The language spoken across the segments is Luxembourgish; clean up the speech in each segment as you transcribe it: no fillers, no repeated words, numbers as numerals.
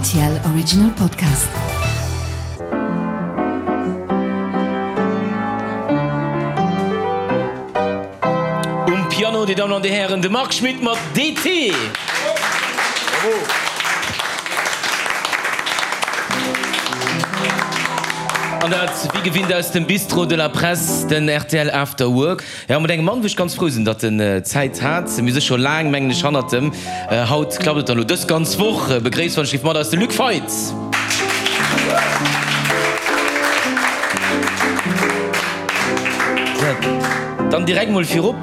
Rtl Original Podcast. Um Piano, Dir Dammen an Dir Hären, de Marc Schmitt mat DT. An dat wéi gewinnt aus dem Bistrot de la Presse, den rtl After Work. Jo, mat engem Mann, wou ech ganz frou sinn, datt en Zäit hat. Mir si scho laang, mengen ech, hannert em. Haut klappt et dann elo dës ganz Woch. Begréisst wann ech géif mat eis de Luc Feit. Dann direkt mol virop,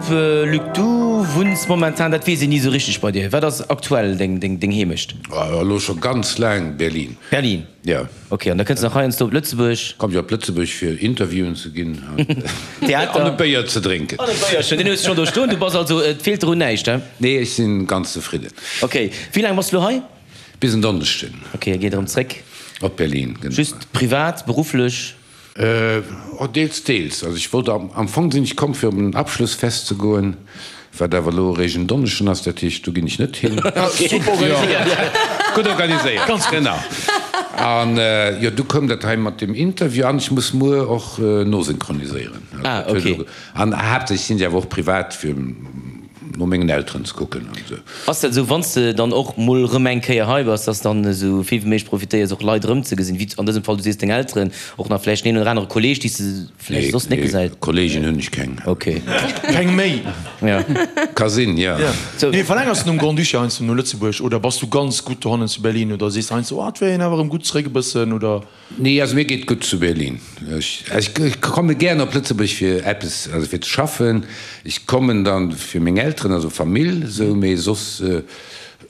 Luc, du wunns momentan, dat weess een ni esou richteg bei dir. Wat ass aktuell deng Heemecht? Elo scho ganz laang Berlin. Berlin? Jo. Ok, an da kënns de nach heiansdo op Lëtzebuerg? Komm ech op Lëtzebuerg fir Interviewen ze ginn Theater. an e Béier ze drénken. An e Béierchen, deen hues de schonn do stoen. Du bass also, et feelt der un näischt, he? Nee, ech sinn ganz zefridden. Ok, wéi laang bass de lo hei? Bis en Donneschden. Ok, a geet erëm zréck? Op Berlin, genau. Just privat, berufflech? Oh, deels, deels. Also ech wollt am, am Fong sinn ech komm fir op en Abschlussfest ze goen, wat awer elo eréischt en Donneschden ass, dat heescht do ginn ech net hin. Super organiséiert. Gutt organiséiert, Ganz gutt. Genau. An jo, du koum dat hei mat dem Interview an ech muss muer och nosynchroniséieren. Ah, ok. An haaptsächlech sinn se awer och privat fir no mengen Elteren ze kucken an esou. Ass dat esou, wann s de dann och mol erëm eng Kéier hei bass, dass dann esou vill wéi méiglech profitéiers och Leit erëmzegesinn, wéi an dësem Fall, du sees deng Elteren, och nach vläicht den een oder anere Kolleeg, déi s de vläicht soss net gesäis? Nee, Kolleegen hunn ech keng. Ok. Keng méi? Ja. Ka sinn, jo. Nee, verlängers de nom Grand-Duché heiansdo no Lëtzebuerg oder bass du ganz gutt dohannen zu Berlin oder sees de heiansdo, oh, et wär een awer erëm gutt zeréck e bëssen oder? Nee, also mir geet gutt zu Berlin. Ech komme gären op Lëtzebuerg fir eppes, also fir ze schaffen. Ech kommen dann fir meng Elteren, also Famill esou, mee soss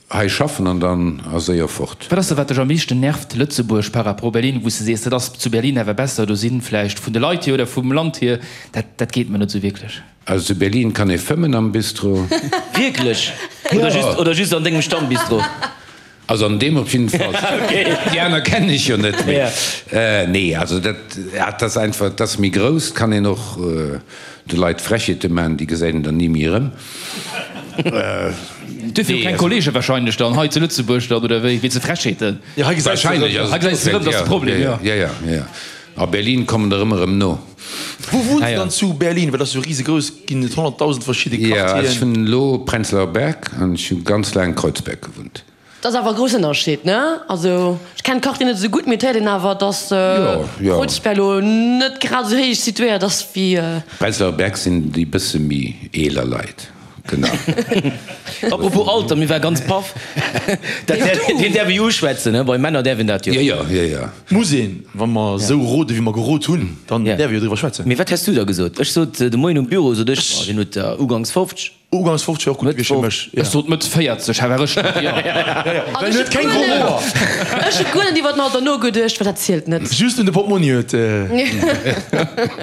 hei schaffen an dann a séier fort. Wat ass da wat dech am meeschten nervt, Lëtzebuerg par rapport Berlin, wou s de sees, dat ass zu Berlin awer besser, do sinn vläicht vun de Leit hier oder vum Land hier, dat dat geet mer net esou wierklech. Also zu Berlin kann ee fëmmen am Bistro. Wierklech? Oder just, oder just an dengem Stammbistro? Also an deem op jidden Fall. Déi aner kennen ech jo net méi. Nee, also dat, dat ass einfach, dat ass méi grouss, kann een och de Leit Frechheete maachen, déi gesäit een dann ni méi erëm. Duerfir och keng Kollege wahrscheinlech dann hei zu Lëtzebuerg dann, oder wéi? Wéinst de Frechheeten? Jo, hei gesäis de erëm. Hei gesäis de erëm, dat ass de Problem, jo. Jo, jo, jo. A Berlin kommen der ëmmer erëm no. Wou wunns de dann zu Berlin? Well dat ass jo risegrouss, ginn et 100.000 verschidde Jo, Quartieren. ech wunnen elo Prenzlauer Berg an ech hu ganz laang Kreuzberg gewunnt. Dat ass awer e groussen Ënnerscheed, ne? Also ech kennen d'Quartier net esou gutt, mee et héiert een awer, dass Kreuzberg elo net grad esou héich situéiert ass wéi. Prenzlauer Berg sinn déi bësse méi eeler Leit, genau. Apropos Alter, mir war ganz paff, dat deen däerf ee jo uschwätzen, ne? Bei Männer däerf een dat jo. Jo, jo, jo, jo. Muss een, wa mer esou rode wéi mer gerot hunn, dann däerf ee jo driwwer schwätzen. Mee wat häss du da gesot? Ech sot de Moien um Büro, sot ech, oh, hien huet der ugangs 50. Ugangs 50 wär och gutt gewiescht fir mech, jo. Ech sot Mëtt 40, ha war ech net, jo. Well en huet keng gro Hoer. Ech hu guer net iwwer den Alter nogeduecht, well dat zielt net. Just un de Portmonni huet. Jo,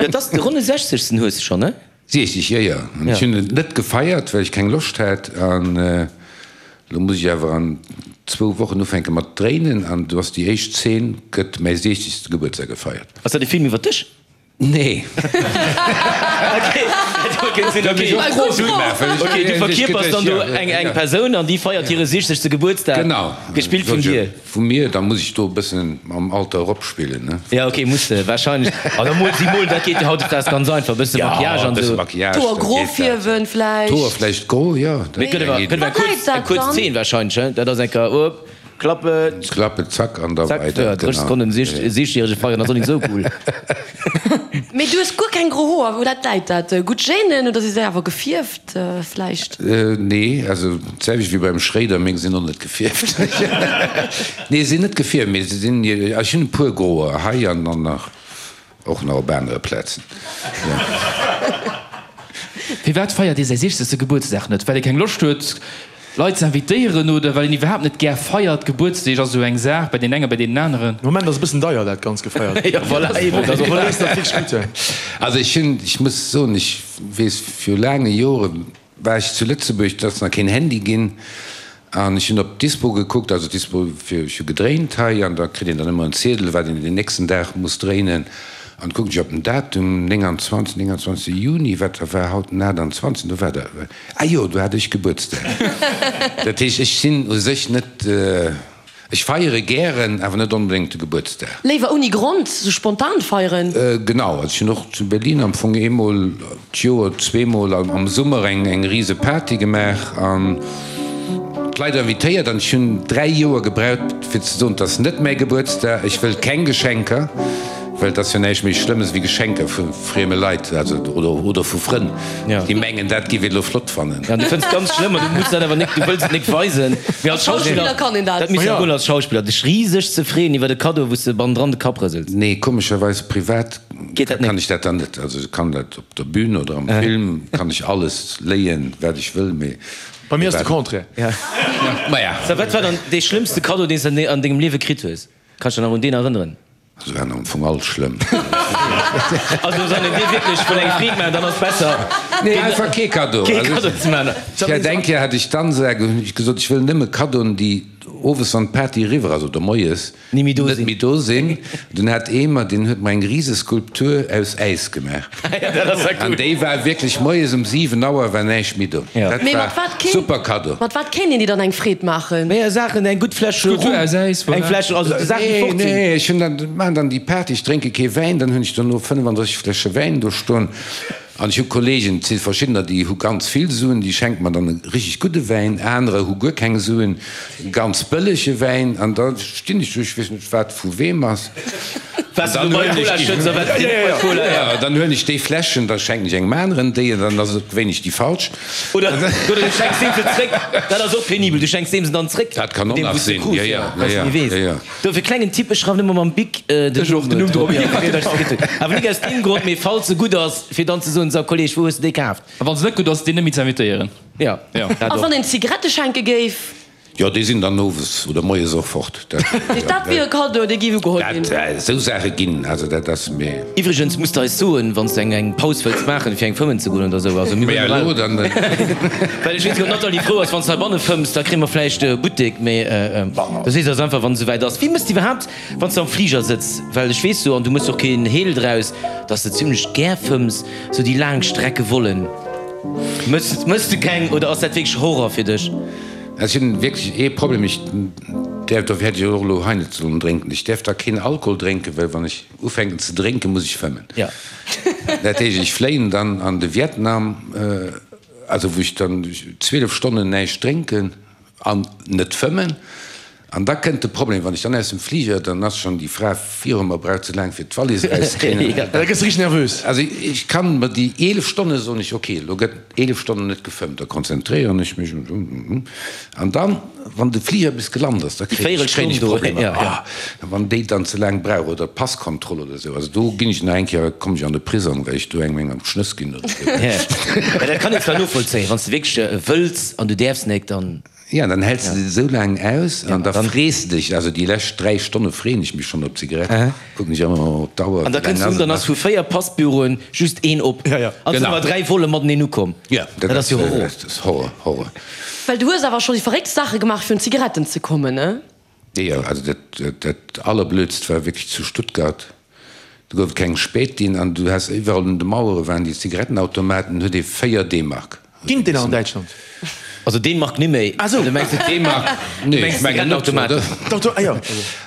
et ass de ronne Sechzegsten hues de schonn, ne? 60, jo, jo. An ech hunn et net gefeiert, well ech keng Loscht hat. An elo muss ech awer an zwou Wochen ufänke mat dréinen. An do ass déi éischt Zeen, gëtt mäi siechzegste Gebuertsdag gefeiert. Ass dat e Film iwwer dech? Nee. Ok, du verkierpers dann do eng Persoun an déi feiert hire siechzegste Gebuertsdag. Genau. Gespillt vun dir. Vu mir, da muss ech do e bëssen mam Alter eropspillen, ne? Ja, ok, muss de wahrscheinlech. An da mol si mol, dat geet jo hautdesdaags ganz einfach, e bësse Maquillage an esou. D'Hoer gro fierwen vläicht. D'Hoer vläicht gro, jo. Mee et gëtt awer, gëtt awer eng kuerz, eng kuerz Zeen wahrscheinlech, he? Dat ass eng Kéier, op, Klappe. Klappe, zack, an da Zack, weider, ja, 30 Sekonnen, siechzegjärege feieren ass och nik esou cool. Mee du hues guer keng gro Hoer, wou dat läit dat? Gutt Genen oder si se awer gefierft vläicht? Nee, also d'selwecht wéi beim Schréider, meng sinn och net gefierft. Nee, se sinn net gefierft, mee se sinn, ech hunn e puer groer hei an dann nach och nach op anere Plazen. Firwat feiert ee säi siechzegste Gebuertsdag net? Well ee keng Loscht huet Leit ze invitéieren oder well een iwwerhaapt net gär feiert? Gebuertsdeeg ass esou eng Saach bei deenen engen, bei deenen aneren. De Moment ass e bëssen deier dat ganz gefeiert. Jo voilà, eben, dat ass och dat. Also ech hunn, ech muss soen, ech weess viru laange Jore war ech zu Lëtzebuerg, et ass nach keen Handy ginn an ech hunn op d'Dispo gekuckt, also d'Dispo fir, ech hu gedréint hei an da kritt een dann ëmmer en Ziedel, wat een den nächsten Dag muss dréinen an kucken ech op den Datum, 29, 29 Juni, wat da war haut den 28, do war da, ah jo, do hat ech Gebuertsdag. Dat heescht, ech sinn u sech net. Ech feiere gären, awer net onbedéngt de Gebuertsdag. Léiwer ouni Grond, sou spontan feieren? Genau, also ech hunn och zu Berlin am Fong eemol d'Joer, zweemol am Summer eng eng rise Party gemaach an d'Leit invitéiert an ech hunn 3 Joer gebraucht fir ze soen, 't ass net mäi Gebuertsdag, ech wëll keng Geschenker. Well et ass jo näischt méi Schlëmmes wéi Geschenker vu frieme Leit, also oder oder vu Frënn, déi mengen, dat géif een elo flott fannen. Ja, du fënns et ganz schlëmm an du muss dat awer nik, du wëlls et nik weisen. Mee als Schauspiller kann een dat. Dat misst jo goen als Schauspiller, dech riseg ze freeën iwwer e Kaddo, wou s de bannendran de Kapp rësels. Nee, komescherweis privat Geet dat nik? kann ech dat dann net. Also ech kann dat op der Bühn oder am Film, kann ech alles léien, wat ech wëll, mee Bei mir ass de Contraire. Maja. Wat war dann dee schlëmmste Kaddo, deen s de an dengem Liewe kritt hues? Kanns dech nach un deen erënneren? Se waren am Fong all schlëmm. Also wann een dir wierklech wëll eng Freed maachen, dann ass besser Nee, einfach kee Kaddo. kee Kaddo ze maachen. Ech hat eng Kéier hat ech d'Ansage, hunn ech gesot, ech wëll nëmme Kaddoen, déi owes wann d'Party eriwwer ass oder moies Ni méi do net sinn. méi do sinn. Dunn hat ee mer, deen huet mer eng rise Skulptur aus Äis gemaach. Dat ass ja An cool. déi war wierklech moies um 7 Auer war näischt méi do. Ja. Dat Mee war mat wat kéint, super Kaddo. mat wat kéint een dir dann eng Freed maachen? Mee Saachen, eng gutt Fläsch Skulptur Rum, aus Äis, eng voilà. Fläsch, also Saachen déi Nee, fort sinn. nee, ech hunn dann, maachen dann déi Party, ech drénke kee Wäin, dann hunn ech dono 35 Fläsche Wäin do stoen. An ech hu Kollegen, et si verschiddener, déi hu ganz vill Suen, déi schenke mer dann e richtig gudde Wäin, anerer hu guer keng Suen, e ganz bëllege Wäin. An da stinn ech do, ech weess net, wat vu weem ass. An dann huelen ech déi, dann huelen ech déi Fläschen, da schenken ech engem aneren déi, an dann ass et gewéinlech déi falsch. Oder du schenks deem se zréck, dat ass och penibel, du schenks deem se dann zréck, Dat kann och nach sinn, jo, jo, jo, jo. Dofir klengen Tipp, ech schreiwen ëmmer mam Bic den Numm drop, awer nik aus deem Grond, mee falls se gutt ass, fir dann ze soen, sou Kolleg, wou hues de déi kaaft? A wann se net gutt ass, deen net méi ze invitéieren. Jo, dat A och. wann een Zigarette schenke géif? Jo, déi sinn dann owes oder moies och fort. Dat wier e Kaddo, dee géif ugeholl ginn. Dat, esou Saache ginn, also dat ass mir. Iwwregens muss de eis soen, wann s de eng Paus wëlls maachen, fir eng fëmmen ze goen oder esou. Also mir Maja, elo dann. Well ech weess net, ob d'Nathalie frou ass, wann s de heibanne fëmms, da kréie mer vläicht e Buttek. Mee du sees eis einfach, wann et esouwäit ass. Wéi mëss de iwwerhaapt, wann s de am Fliger sëtz? Well ech weess jo, an du mëss och keen Heel draus, dass de zimlech gär fëmms, esou déi laang Strecke Vollen. Mëss, mëss de keng oder ass dat wierklech Horror fir dech? Ech hunn wierklech ee Problem, ech däerf, dofir hätt ech och elo hei net sollen drénken, ech däerf da keen Alkohol drénken, well wann ech ufänken ze drénken, muss ech fëmmen. Dat heescht, ech fléien dann an de Vietnam, also wou ech dann 12 Stonnen näischt drénken an net fëmmen. An da kënnt de Problem, wann ech dann aus dem Fliger, dann ass schonn déi Fra viru mer, braucht ze laang fir d'Wallis erauszekréien. Da gëss de richteg nervös. Also ech kann mer déi 11 Stonne soen ech, ok, elo gëtt 11 Stonnen net gefëmmt, da konzentréieren ech mech an dann, wann de Fliger bis gelant ass, da kréien ech kréien ech Problemer. Ah, wann déi dann ze laang brauch oder d'Passkontroll oder esou, also do ginn ech nach eng Kéier, kommen ech an de Prisong, well ech do engem eng an d'Schnëss ginn oder esou. Mä dat kann een zwar novollzéien, wann s de wierklech wëlls an du däerfs nek, dann. Ja, dann häls de se esou laang aus an da frees de dech, also déi lescht 3 Stonne freeën ech mech schonn op d'Zigarett, kucken ech ëmmer op d'Auer, An da wéi laang kënns du ass un, et dann ass nach? vu 4 Passbüroen just een op. An sinn awer 3 Volle mateneen ukomm. Ja, Dat ass jo Horror. Dat ass Horror, Horror. Well du hues awer scho déi verrécktst Saache gemaach fir un Zigaretten ze kommen, ne? Jo, also dat, dat allerblödst war wierklech zu Stuttgart. Do gouf et keng Spätin an du has iwwerall un de Mauere waren déi Zigarettenautomaten, huet ee 4 D-Mark. Ginn et déi nach an Däitschland? Also D-Mark ni méi. Ah sou. Du mengs net D-Mark? Nee, ech mengen net, oder? D'Auto, ah jo.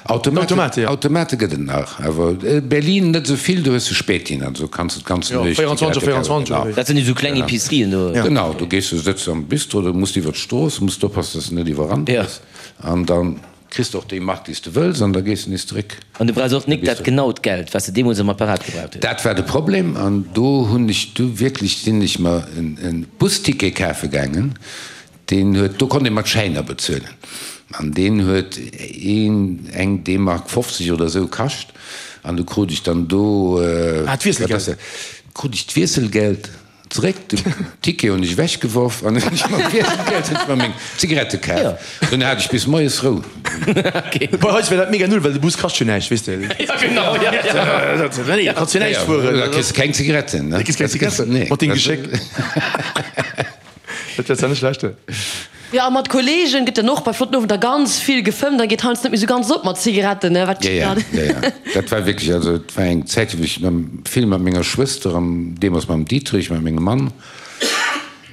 Automate, jo. Automate gëtt et nach, awer Berlin net esou vill, do hues de Spätin, also kanns de d'ganz Jo, Nuecht 24 op Zigarette 24 kafen. oder wéi? Dat sinn esou kleng Epicerien do. Genau, do gees du, sëtz am Bistro, do muss de iwwer d'Strooss, muss d'oppassen, dass de net iwwerrannt gëss an dann. Kriss de och déi Mark déi s de wëlls an da gees de nees zeréck. An du brauchs och nik dat genaut Geld wat s de deemools am Apparat gebraucht hues. Dat war de Problem an do hunn ech du wierklech, sinn ech mer en Busticket kafe gaangen, deen huet, do konnt ee mat Schäiner bezuelen an deen huet een, eng D-Mark 50 oder esou kascht an du krut ech dann do, Ah, d'Wiesselgeld. krut ech d'Wiesselgeld. Zeréck, den Ticket hunn ech ewech geworf an hunn ech mam Wiesselgeld hunn ech mer meng Zigarette kaf. Dunn hat ech bis moies Rou. Bei eis wär dat mega null, well de Bus kascht jo näischt, weess de. Ja genau, ja, ja. Nee, da kanns jo näischt fueren. Da kriss de keng Zigaretten, ne? Da kriss keng Zigaretten. Nee. Mat deem Geschéck. Dat wär zwar net schlecht. Jo, a mat Kollegen gëtt dann och bei flotten Owender ganz vill gefëmmt, dann geet heiansdo net méi sou ganz op mat Zigaretten, ne? Wat Ja, ja, ja, ja. Dat war wierklech, also et war eng Zäit, wou ech vill mat menger Schwëster an deemools mam Dietrich, mat mengem Mann.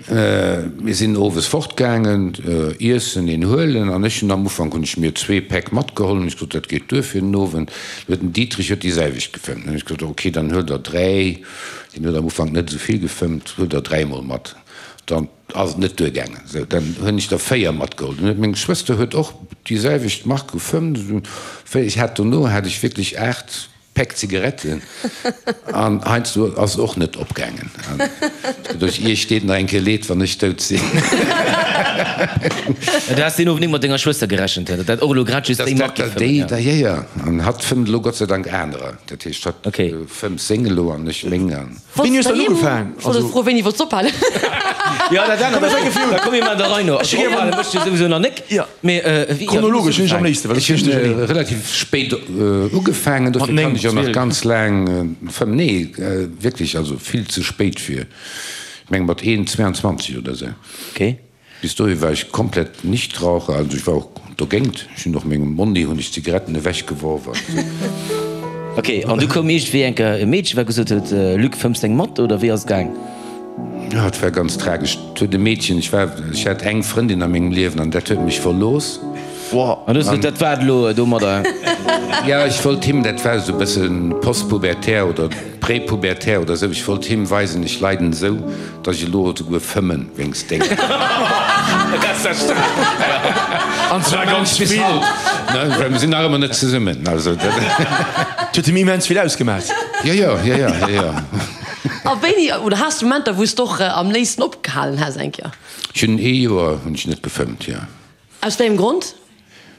Mir sinn owes fortgaangen, iessen, een huelen an ech hunn am Ufank hunn ech mir zwee Päck matgeholl, hunn ech gesot, dat geet duer fir den Owend. Du huet den Dietrich huet déi selwecht gefëmmt. Hunn ech gesot, ok, dann huel der dräi, deen huet am Ufank net esou vill gefëmmt, huel der dräi mol mat. Dann ass et net duergaangen, sou dann hunn ech der véier matgeholl. Dann huet meng Schwëster huet och déi selwecht Mark gefëmmt, esou ech hat dono hat ech wierklech 8 Päck Zigaretten an heiansdo ass et och net opgaangen. An doduerch, Iech deet nach eng Kéier leed, wann ech dout sinn. Du has deen Owend nik mat denger Schwëster gerechent, datt dat och elo grad just déi Mark géif fëmmen, ja. Jo, jo, an hatt fëmmt elo Gott sei Dank anerer. Dat heescht, hatt fëmmt seng elo an ech meng. Wéini hues du dann ugefaang? Ech wollt elo froen, wéini wollts du ophalen? Jo, dat anert ass och. Da komme mir an der Rei no. Also ophale mécht jo souwisou nach nik. Mee wéi, Chronologesch hunn ech am léifsten, well Ech hunn relativ spéit ugefaangen, dofir kann ech och nach ganz laang fëmmen. Nee, wierklech, also vill ze spéit fir, ech menge mat 21 oder esou. Okay. Bis dohi war ech komplett Nichtraucher, also ech war och dogéint. Ech hunn och mengem Monni hunn ech d'Zigaretten ewech geworf an esou. Ok, an du koum iergendwéi eng Kéier e Meedchen, wat gesot huet, Luc, fëmms deng mat, oder wéi ass et gaang? Jo, et war ganz tragesch. Et huet e Meedchen, ech war, ech hat eng Frëndin a mengem Liewen an dat huet mech verlooss. An du hues gesot, dat war et elo domadder? Jo, ech wollt him, dat war esou e bësse postpubertär oder Prépubertär oder esou, ech wollt him weisen, ech leiden esou, dass ech elo esouguer fëmmen wéinst dengem. An zwar ganz Bis vill. haut, ne, well mir sinn nach ëmmer net zesummen, also dat. Et huet him immens vill ausgemaach. Jo, jo, jo, jo, jo, jo. A wéini, oder has de Momenter, wou s de och am léifsten opgehalen häss eng Kéier? Ech hunn ee Joer hunn ech net gefëmmt, jo. Aus wéi engem Grond?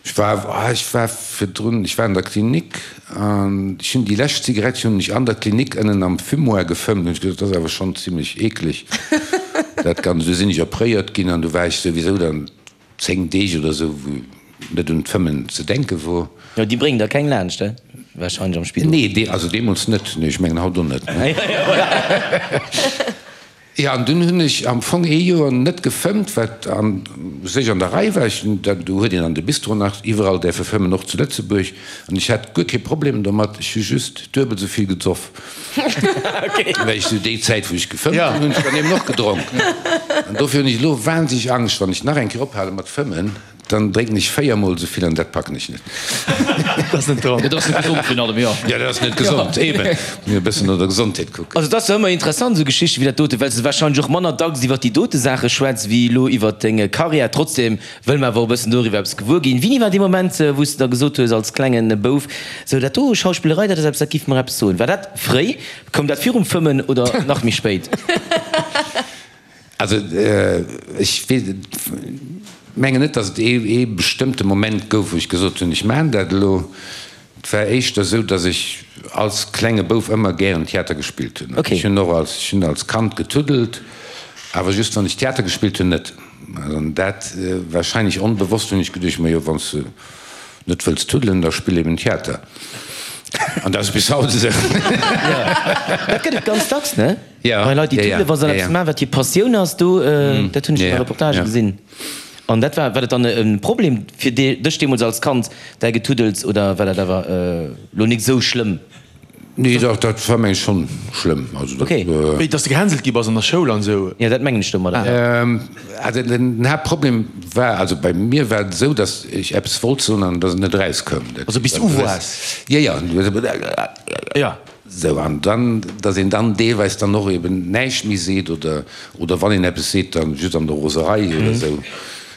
Ech war, ah, ech war virdrun, ech war an der Klinik an ech hunn déi lescht Zigarett hunn ech an der Klinik ënnen am Fumoir gefëmmt. Hunn ech gesot, dat ass awer schonn zimlech eekleg, dat Ganzt. Du sinn ech opréiert ginn an du war ech souwisou dann 10 Deeg oder esou, wou net un d'Fëmmen ze denke wor. Jo, déi bréngen der keng laanscht, he? Wahrscheinlech am Spidol. Nee, dee, also deemools net. Nee, ech mengen haut och net. Jo, an dunn hunn ech am Fong ee Joer net gefëmmt, wat a sech an der Rei war. Ech hunn dat, do huet een an de Bistro nach iwwerall däerfe fëmmen, och zu Lëtzebuerg, an ech hat guer kee Problem domat. Ech hu just duebel esou vill gesoff. Well ech sou déi Zäit, wou ech gefëmmt hunn, hunn ech dann eben och gedronk. An dofir hunn ech elo wahnsinneg Angscht, wann ech nach eng Kéier ophale mat fëmmen, Dann drénken ech 4 mol esou vill an dat packen ech net. Dat ass net dran. Dat ass net gesond virun allem, jo. Jo, dat ass net gesond, eben. Muss e bëssen no der Gesondheet kucken. Also et ass jo ëmmer interessant esou Geschichten wéi dat dote, well s de wahrscheinlech och manner dacks iwwer déi dote Saache schwätz wéi elo iwwer deng Karriär. Trotzdem wëlle mer awer och e bëssen doriwwer eppes gewuer ginn. Wéini war dee Moment, wou s de da gesot hues als klengen Bouf, sou dat do Schauspillerei, dat ass eppes, dat giff mer eppes soen. War dat fréi? Koum dat virum Fëmmen oder nach méi spéit? Also ech mengen net, datt et ee bestëmmte Moment gouf, wou ech gesot hunn, ech maachen dat elo. Et war éischter esou, datt ech als klenge Bouf ëmmer gären Theater gespillt hunn. Ech hunn och als, ech hunn als Kand getuddelt, awer just wann ech Theater gespillt hunn net. An dat warscheinlech onbewosst hunn ech geduecht, majo wann s de net wëlls tuddelen, da spill eben Theater. An dat ass bis haut esou. Dat gëtt et ganz dacks, ne? Ja, Bei Leit, déi ja, ja, tuddelen, wa se ja, eppes ja. maachen, wat hir Passioun ass, do, dat hunn ech an der Reportage ja. gesinn. An dat war, war dat dann e Problem fir dech deemools als Kand, däi Getuddels, oder war dat awer elo nik esou schlëmm? Nee, dach, dat war meng ech schonn schlëmm. Also dat, Okay. Wéi, dass de gehänselt gi bass an der Schoul an esou? Jo, dat mengen ech domadder, ja. Also den Haaptproblem war, also bei mir war et esou, dass ech eppes wollt soen an dass et net erauskoum. Dat, Also bis du uwaars? Ja, ja. Ja. Sou, an dann, datt een dann deelweis dann och eben näischt méi seet oder, oder wann een eppes seet, dann just an der Roserei oder esou.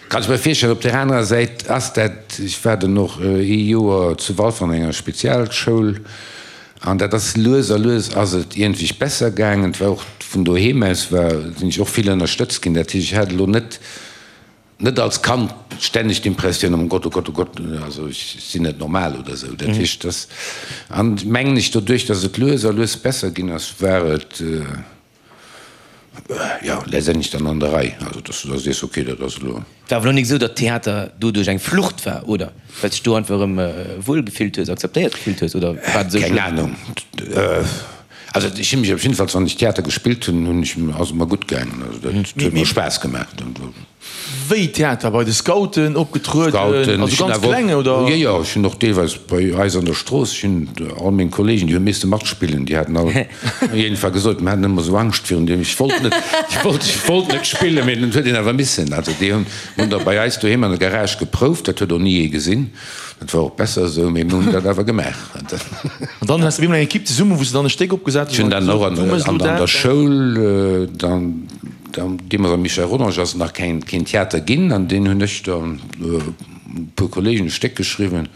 Kann ech mer virstellen. Op där anerer Säit ass dat, ech war dann och ee Joer zu Walfer an enger Spezialschoul an dat ass lues a lues ass et iergendwéi besser gaangen. Et war och vun doheem aus war, sinn ech och vill ënnerstëtzt ginn. Dat heescht, ech hat elo net, Net als Kand stänneg d'Impressioun, oh Gott, oh Gott, oh Gott, also ech sinn net normal oder esou. Dat heescht, dass, an mengen ech, doduerch, dass et lues a lues besser ginn ass, war et, jo, letztendlech dann an der Rei. Also dass du da sees, okay, dat ass elo. War awer elo nik esou, datt Theater doduerch eng Flucht war, oder? Well s dech do einfach erëm wuel gefillt hues, akzeptéiert gefillt hues, oder war et esou Keng schlëmm? Ahnung. Also ech hu mech op jiddefalls, wann ech Theater gespillt hunn, hunn ech, ass et mer gutt gaangen. Also dat huet mer Spaass gemaach. Wéi Theater? Bei de Scouten opgetrueden? Scouten, Also ech hunn ganz awer kleng, och, oder? jo, jo, ech hunn och deelweis bei eis an der Strooss, ech hunn all meng Kollegen, déi hu misse matspillen, déi haten all iergendwa gesot, mir haten ëmmer esou Angscht virun deem, ech wollt net, ech wollt, ech wollt net spillen, mee et huet een awer missen. Also déi hunn, hunn da bei eis doheem an der Garage geprouft, dat huet och ni ee gesinn, dat war och besser esou, mee mir hunn dat awer gemaach. An dann has de op eemol eng Equipe zesummen, wou s de dann e Stéck opgesat Ech hunn hues dann och an an, du méchs elo an dat, der dat. Schoul dann. Deemools am Michel Rodange ass et nach keen Theater ginn an deen hunn ech dann e puer Kollegen e Stéck geschriwwen.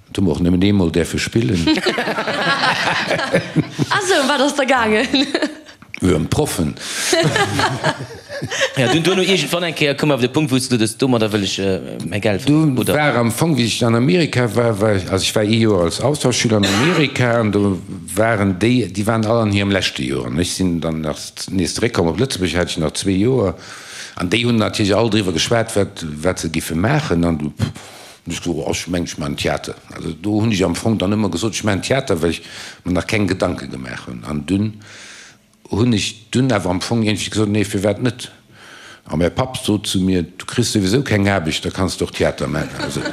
Dat hu mer och nëmmen eemol däerfe spillen. Ah sou, ëm wat ass da gaangen? Jo, ëm d'Proffen. Jo, dunn duerno iergendwann eng Kéier koum awer de Punkt, wou s du gesot hues, domadder wëll ech mäi Geld verdienen, Du oder? war am Fong, wéi ech an Amerika war, war ech, also ech war ee Joer als Austauschschüler an Amerika an do waren déi, déi waren all an hirem leschte Joer an ech sinn dann nach Nees zeréckkomm op Lëtzebuerg hat ech nach zwee Joer an déi hunn natierlech all driwwer geschwat, wat, wat se giffe maachen. An du hunn ech gesot, oh, ech mengen, ech maachen Theater. Also do hunn ech am Fong dann ëmmer gesot, ech maachen Theater, well ech mer nach keng Gedanke gemaach hunn. An dunn hunn ech dunn awer am Fong iergendwéi gesot, nee, firwat net? A mäi Papp sot zu mir, Du kriss souwisou keng Aarbecht, da kanns de och Theater maachen. Also. Well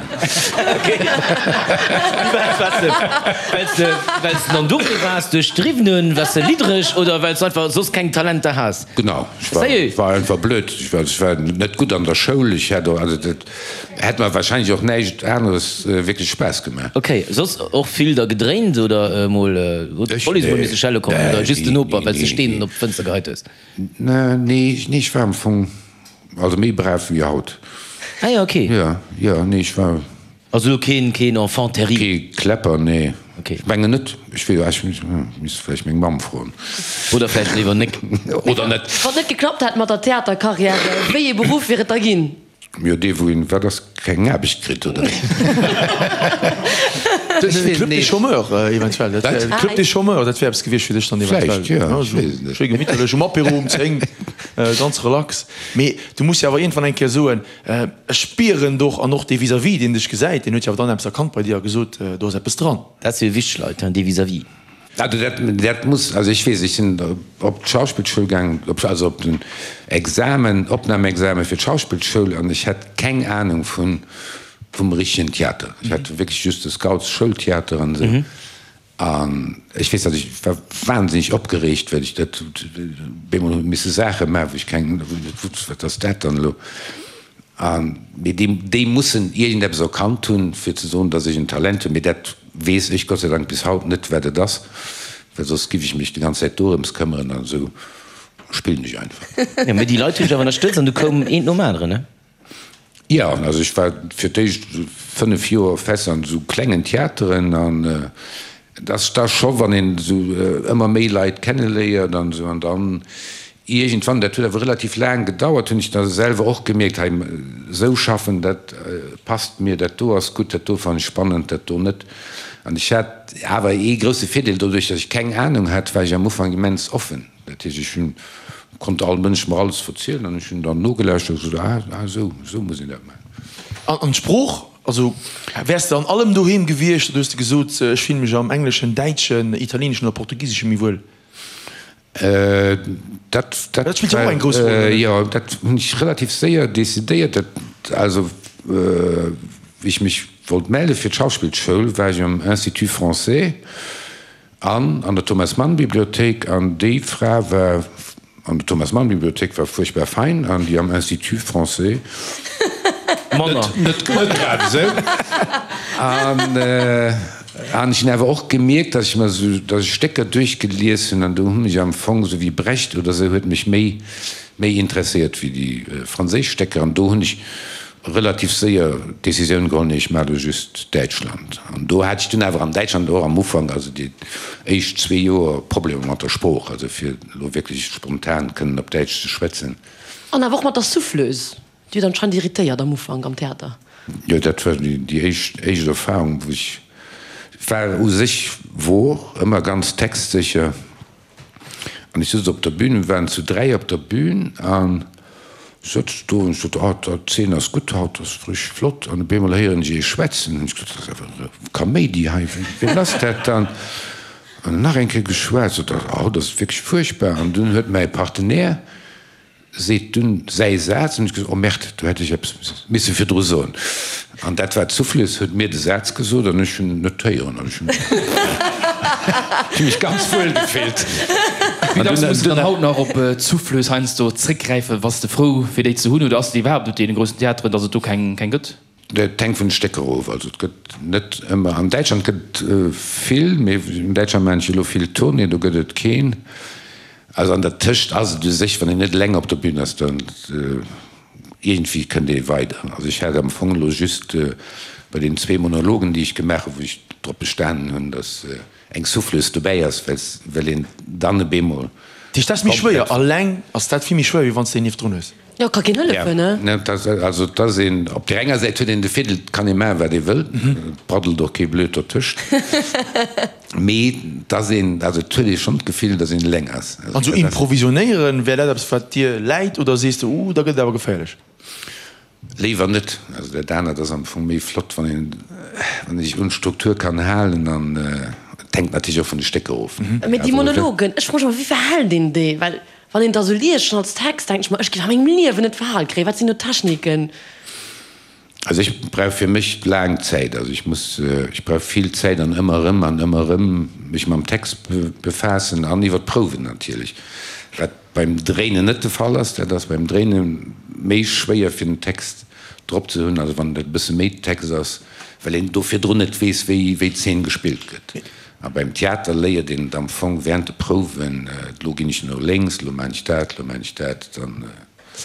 s de, well s de dann dofir waars, duerch d'Driwwen hunn, waars de liddereg oder well s de einfach soss keng Talenter has? Genau, ech war, Sérieux? war einfach blöd. Ech war, ech war net gutt an der Schoul. Ech hätt och, also dat hätt mer wahrscheinlech och näischt aneres wierklech Spaass gemaach. Ok, soss och vill da gedréint oder mol huet Ech? d'Police mol Nee, misse schelle kommen nee, oder just den nee, Noper, well s de nee, Steen nee. op d'Fënster geheit hues? Nee, nee, ech war am Fong, also méi brav wéi haut. Ah jo, ok. Jo, jo, nee, ech war. Also elo keen, keen Enfant terrible? Kee Kläpper, nee. Ok. Ech mengen net. Ech weess, ech misst vläicht meng Mamm froen. Oder vläicht léiwer nek. Oder net. Wann et net geklappt hätt mat der Theaterkarriär, wéi ee Beruff wier et da ginn? Jo, dee wou een, wat ass, keng Aarbecht kritt, oder? De Club des Chômeurs eventuell. Dat wär, de Club des Chômeurs, dat wär eppes gewiescht fir dech dann eventuell. Vläicht, jo, ech weess et net. Schéi gemitterlech um Apéro um 10, ganz relax. Mee du muss jo awer iergendwann eng Kéier soen, ech spieren doch, an och dee Vis-à-vis, deen dech gesäit, deen huet jo awer dann eppes erkannt bei dir a gesot, do ass eppes dran. Dat si jo wichteg Leit, hein, dee Vis-à-vis. Also dat, dat muss, also ech weess, ech sinn op d'Schauspillschoul gaangen, op, also op den Examen, Opnamexamen fir d'Schauspillschoul an ech hat keng Ahnung vun, vum richtegen Theater. Ech hat wierklech just de Scouts-Schoultheater an esou. An ech weess, datt ech war wahnsinneg opgereegt, well ech dat bemol hu misse Saache maachen, wou ech keng, wou ech net wusst, wat ass dat dann elo. An, mee déi, déi mussen iergendeppes erkannt hunn, fir ze soen, datt ech en Talent hunn. Mee dat weess ech Gott sei Dank bis haut net, wat et ass, well soss giff ech mech déi ganz Zäit dorëms këmmeren. An esou spillen ech einfach. Jo, mee déi Leit hunn dech awer ënnerstëtzt an du koum eent nom aneren, ne? Jo, also ech war fir d'éischt 5 Joer fest an esou klengen Theateren an et ass da scho wann een esou ëmmer méi Leit kenneléiert an esou an dann iergendwann, dat huet awer relativ laang gedauert, hunn ech da selwer och gemierkt, hei esou schaffen, dat passt mir, dat do ass gutt, dat do fannen ech spannend, dat do net. An ech hat awer ee grousse Virdeel, doduerch datt ech keng Anung hat, war ech am Ufank immens offen. Dat heescht, ech hunn, konnt all Mënsch mer alles verzielen an ech hunn dann nogelauschtert a gesot, ah, ah esou, esou muss een dat maachen. An d'Sprooch, also wäers de an allem doheem gewiescht oder hues de gesot, ech fillen mech am Engleschen, Däitschen, Italieeneschen oder Portugiseschen méi wuel? Dat, dat, Dat spillt jo och eng grouss Roll, oder net? Jo, dat hunn ech relativ séier decidéiert. Dat, also wéi ech mech wollt melle fir d'Schauspillschoul, war ech am Institut Français. An an der Thomas Mann Bibliothéik, an déi Fra war an der Thomas Mann Bibliothéik war fuerchtbar fein, an déi am Institut Français Manner. Net net grad esou. An an ech hunn awer och gemierkt, datt ech mer esou, datt ech Stécker duerchgelies hunn, an do hu mech am Fong esou wéi Brecht oder esou huet mech méi méi interesséiert wéi déi franséisch Stécker, an do hunn ech relativ séier d'Decisioun geholl, nee, ech maache lo just Däitschland. An do hat ech dunn awer an Däitschland och am Ufank, also déi éischt zwee Joer, Problemer mat der Sprooch, also fir elo wierklech spontan kënnen op Däitsch ze schwätzen. An awer och mat der Souffleuse, déi huet anscheinend irritéiert am Ufank am Theater. Jo, dat war déi éischt éischt Erfahrung, wou ech war u sech wor ëmmer ganz textsécher. An ech sëtz op der Bühn, mir waren zu 3 op der Bühn an ech sëtz do an ech sot, oh, d'Zeen ass gutt haut, ass richteg flott. An op eemol héieren ech ee schwätzen. Hunn ech gesot, dat ass awer e Kaméidi hei, wien ass dat dann? An nach eng Kéier geschwat, sot, oh, dat ass wierklech fuerchtbar. An dunn huet mäi Partenaire. Seet dunn säi Saz, an ech gesot, oh Merde, do hätt ech eppes misse virdru soen. An dat war d'Souffleuse, huet mir de Saz gesot an ech hunn en net héieren an ech hunn mech ganz wuel gefillt. Wéi dacks muss de dann haut nach op d'Souffleuse heiansdo zréckgräifen? Bass de frou fir déi ze hunn oder ass et iwwerhaapt op deene groussen Theateren, datt et do keng gëtt? Et hänkt vun de Stécker of. Also et gëtt net ëmmer, an Däitschland gëtt et vill, mee an Däitschland maachen ech elo vill Tournée, do gëtt et keen. Also an der Tëscht ass et u sech, wann een net eleng op der Bühn ass, dann iergendwéi kënnt ee weider. Also ech hat am Fong elo just bei den zwee Monologen, déi ech gemaach hunn, wou ech drop bestanen hunn, datt eng Souffleuse dobäi ass, well een dann e beemol. Dat heescht, dat ass méi schwéier, eleng ass dat vill méi schwéier, wéi wann s de een nieft drun hues? Jo, ka keen hëllefen, ne? Also et ass een, op där enger Säit huet een de Virdeel, et kann ee maachen, wat ee wëll, et braddelt och kee blöd dertëscht, mee et ass een, also et huet ee schonn d'Gefill, datt een eleng ass. An esou improvisionéieren, wär dat eppes, wat dir läit, oder sees de, uh, da gëtt et awer geféierlech? Léiwer net. Also dat anert ass am Fong méi flott, wann een, wann ee sech un d'Struktur kann halen an et hänkt natierlech och vun de Stécker of. Mee déi Monologen, ech froe mech ëmmer, wéi verhält een déi? Well Wann een da sou liest, schonn als Text, denken ech mer, ech géif a mengem Liewen net verhal kréien. Wat sinn do d'Techniken? Also ech brauch fir mech laang Zäit. Also ech muss, ech brauch vill Zäit an ëmmer erëm an ëmmer erëm mech mam Text befaassen an iwwer d'Prouwen natierlech, wat beim Dréinen net de Fall ass. Dat ass beim Dréine méi schwéier fir den Text drop ze hunn, also wann et e bësse méi Text ass, well een do virdrun net weess, wéi d'Zeen gespillt gëtt. A beim Theater léiert een et am Fong während de Prouwen, elo ginn ech no lénks, elo maan ech dat, elo maan ech dat, dann.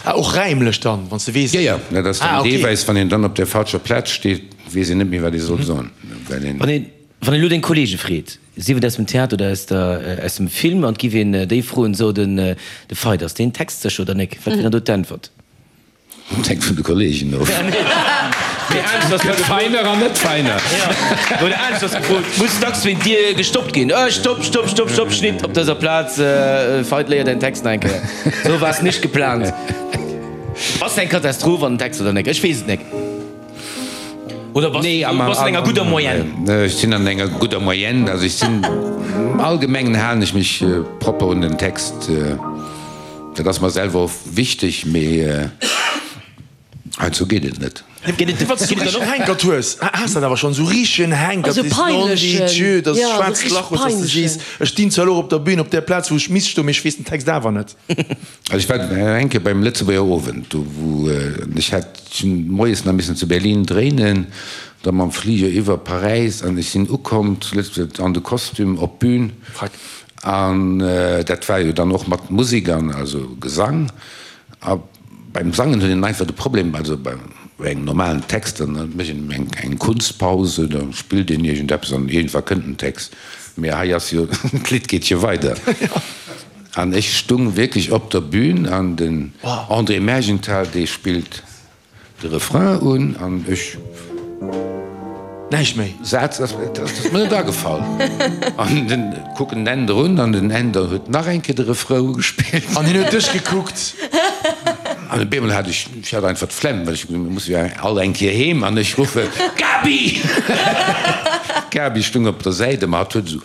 Ah, och räimlech dann, wann s de weess. Jo, jo, dat ass dann deelweis, wann een dann op der falscher Plaz steet, weess een net méi, wat ee soll soen, well een. Wann een, wann een elo deng Kollege freet, sief et aus dem Theater oder aus der, aus dem Film, an et giff een déi froen, so, den, de Veit, ass deen textsécher oder nek? Wat wier dann do d'Äntwert? Dat hänkt vun de Kollegen of. Gëtt feiner an net feiner. Oder anescht ass gefrot, Muss dacks wéint dir gestoppt ginn? Äh, stopp, stopp, stopp, stopp, Schnitt op dëser Plaz, Veit, léier däin Text nach eng Kéier. Sou war es nicht geplant. Ass eng Katastroph an den Text oder nek? Ech weess et nek. Oder bass du bass an enger gudder Moyenne? Ech sinn an enger gudder Moyenne. Also ech sinn, am Allgemengen halen ech mech propper un den Text. Dat ass mer selwer och wichteg, mee heiansdo geet et net. Wann s du richtegen Hänkert hues, has dat awer schonn, esou richtegen Hänkert, sees non de Dieu, dass e schwaarzt Lach hues, dass de sees, ech stinn zwar elo op der Bühn, op där Plaz wou ech misst stoen, mee ech weess den Text awer net. Also ech war eng Kéier beim Lëtzebuerger Owend, do wou ech hat, ech hunn moies nach missen zu Berlin dréinen, da mam Fliger iwwer Paräis an ech sinn ukomm zu Lëtzebuerg an de Kostüm op d'Bühn. An dat war jo dann och mat Musek an also Gesang. A beim Sangen huet een einfach de Problem, also bei engem normalen Text, dann mécht een eng eng Kunstpause, da spillt een iergendeppes an iergendwa kënnt den Text. Mee hei ass jo, d'Lidd geet jo weider. An ech stung wierklech op der Bühn an den André Mergenthal, dee spillt De Refrain un an ech. Näischt méi. Saz ass mir net agefall. An den kucken den Änder un an den Änder huet nach eng Kéier de Refrain ugespillt. An hien huet dech gekuckt. An op eemol hat ech, ech hat einfach d'Flemm, well ech gesot hunn, mir musse jo all eng Kéier heem an ech ruffen, Gaby! D'Gaby stung op der Säit a ma hatt huet esou.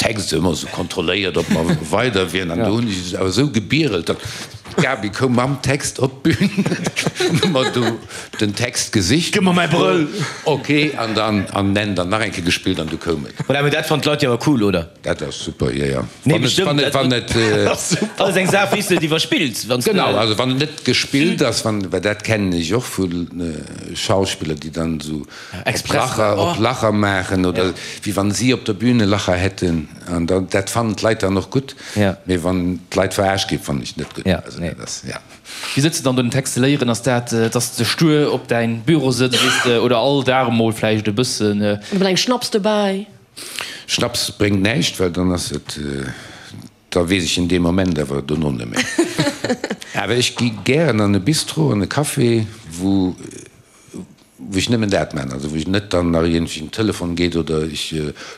Text ëmmer esou kontrolléiert, ob mer weider wieren. An do hunn ech awer esou gebierelt, datt d'Gaby koum mam Text op d'Bün, hu mer do den Text gesicht. Gëmm mer mäi Brëll! Ok, an dann an en dann nach eng Kéier gespillt an du koum et. Voilà, mee dat fannen d'Leit jo awer cool, oder? Dat ass super, jo, jo. Nee, bestimmt. Wann et, wann et, Dat ass eng Saach, wéi s de et iwwerspills, wann s de. Genau, also wann et net gespillt ass, wann, well dat kennen ech och vu Schauspiller, déi dann esou Lacher op Lacher maachen oder wéi wann si op der Bühn e Lacher hätten an dann dat fannen d'Leit dann och gutt, mee wann d'Leit verarscht ginn, fannen ech net gutt. Also dat ass, ja. Wéi sëtz de dann do den Text ze léieren? Ass dat, dass de stuer op däin Büro sëtz, weess de, oder all Dag emol vläicht e bëssen? Oder mat engem Schnaps dobäi? Schnaps bréngt näischt, well dann ass et, da weess ech en dee Moment awer dono net méi. Awer ech gi gären an e Bistro, an e Café, wou wou ech nëmmen dat maachen, also wou ech net dann nach iergendwéi en Telefon geet oder ech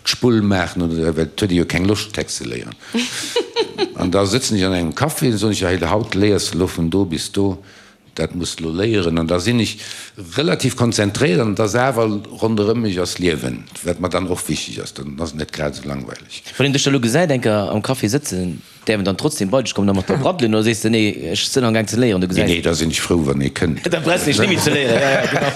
d'Spull maachen oder dat, well et huet ee jo keng Loscht Text ze léieren. An da sëtzen ech an engem Café, da soen ech, hei haut léiers de elo vun do bis do. Dat muss de lo léieren. An da sinn ech relativ konzentréiert an et ass awer ronderëm mech ass Liewen, wat mer dann och wichteg ass. Dann ass et net grad esou langweileg. Wann een dech da lo gesäit eng Kéier am Café sëtzen, däerf en dann trotzdem bei dech kommen a mat der braddelen oder sees de, nee, ech sënn amgaang ze léieren, du Nee, gesäis. nee, da sinn ech frou, wann ee kënnt. Da brauchs de net méi ze léieren, ja, ja, genau.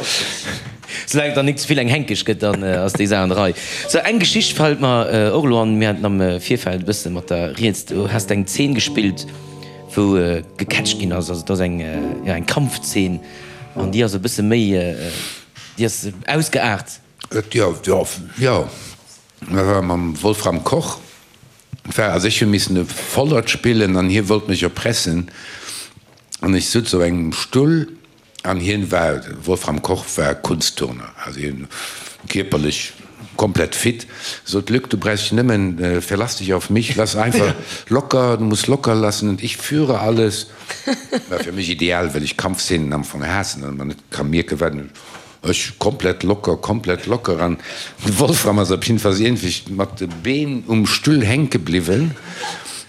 Soulaang et dann nik ze vill eng Henkeg gëtt, dann ass déi Saach an der Rei. Sou, eng Geschicht fält mer och elo an, mir haten am Virfeld e bësse mat der rieds, du has eng Zeen gespillt, wou gecatcht ginn ass, also et ass eng, jo, eng Kampfzeen an déi ass e bësse méi, déi ass ausgeaart. Jo, jo, jo, dat war mam Wolfram Koch. Et war, also ech hu missen e Vollert spillen an hie wollt mech erpressen an ech sutz op engem Stull An hien war, Wolfram Koch war Kunstturner, also hien kierperlech komplett fit, sot, Luc, du brauchst dich nëmmen, verlass dich auf mich, lass einfach locker, du musst locker lassen und ich führe alles. War fir mech ideal, well ech Kampfszenen am Fong haassen an mer net ka mierken, wat ech komplett locker, komplett locker an de Wolfram ass op jiddefalls iergendwéi mat de Been um Stull hänke bliwwen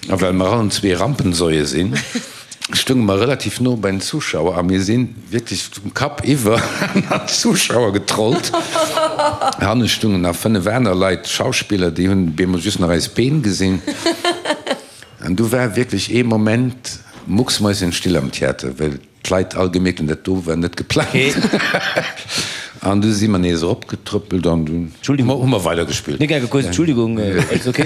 a well mer allen zwee Rampensäue sinn, stounge mer relativ no bei den Zuschauer a mir si wierklech um Kapp iwwer an d'Zuschauer getrollt. Hanne stungen nach 5 aner Leit, Schauspiller, déi hunn bemol just nach eis Been gesinn. An du war wierklech ee Moment mucksmäuschenstill am Theater, well D'Leit all gemierkt hunn, dat do war net geplangt. An du si mer nees eropgetrëppelt an dunn hu mer weidergespillt. Mir genge kuerz, Entschuldigung, alles ok?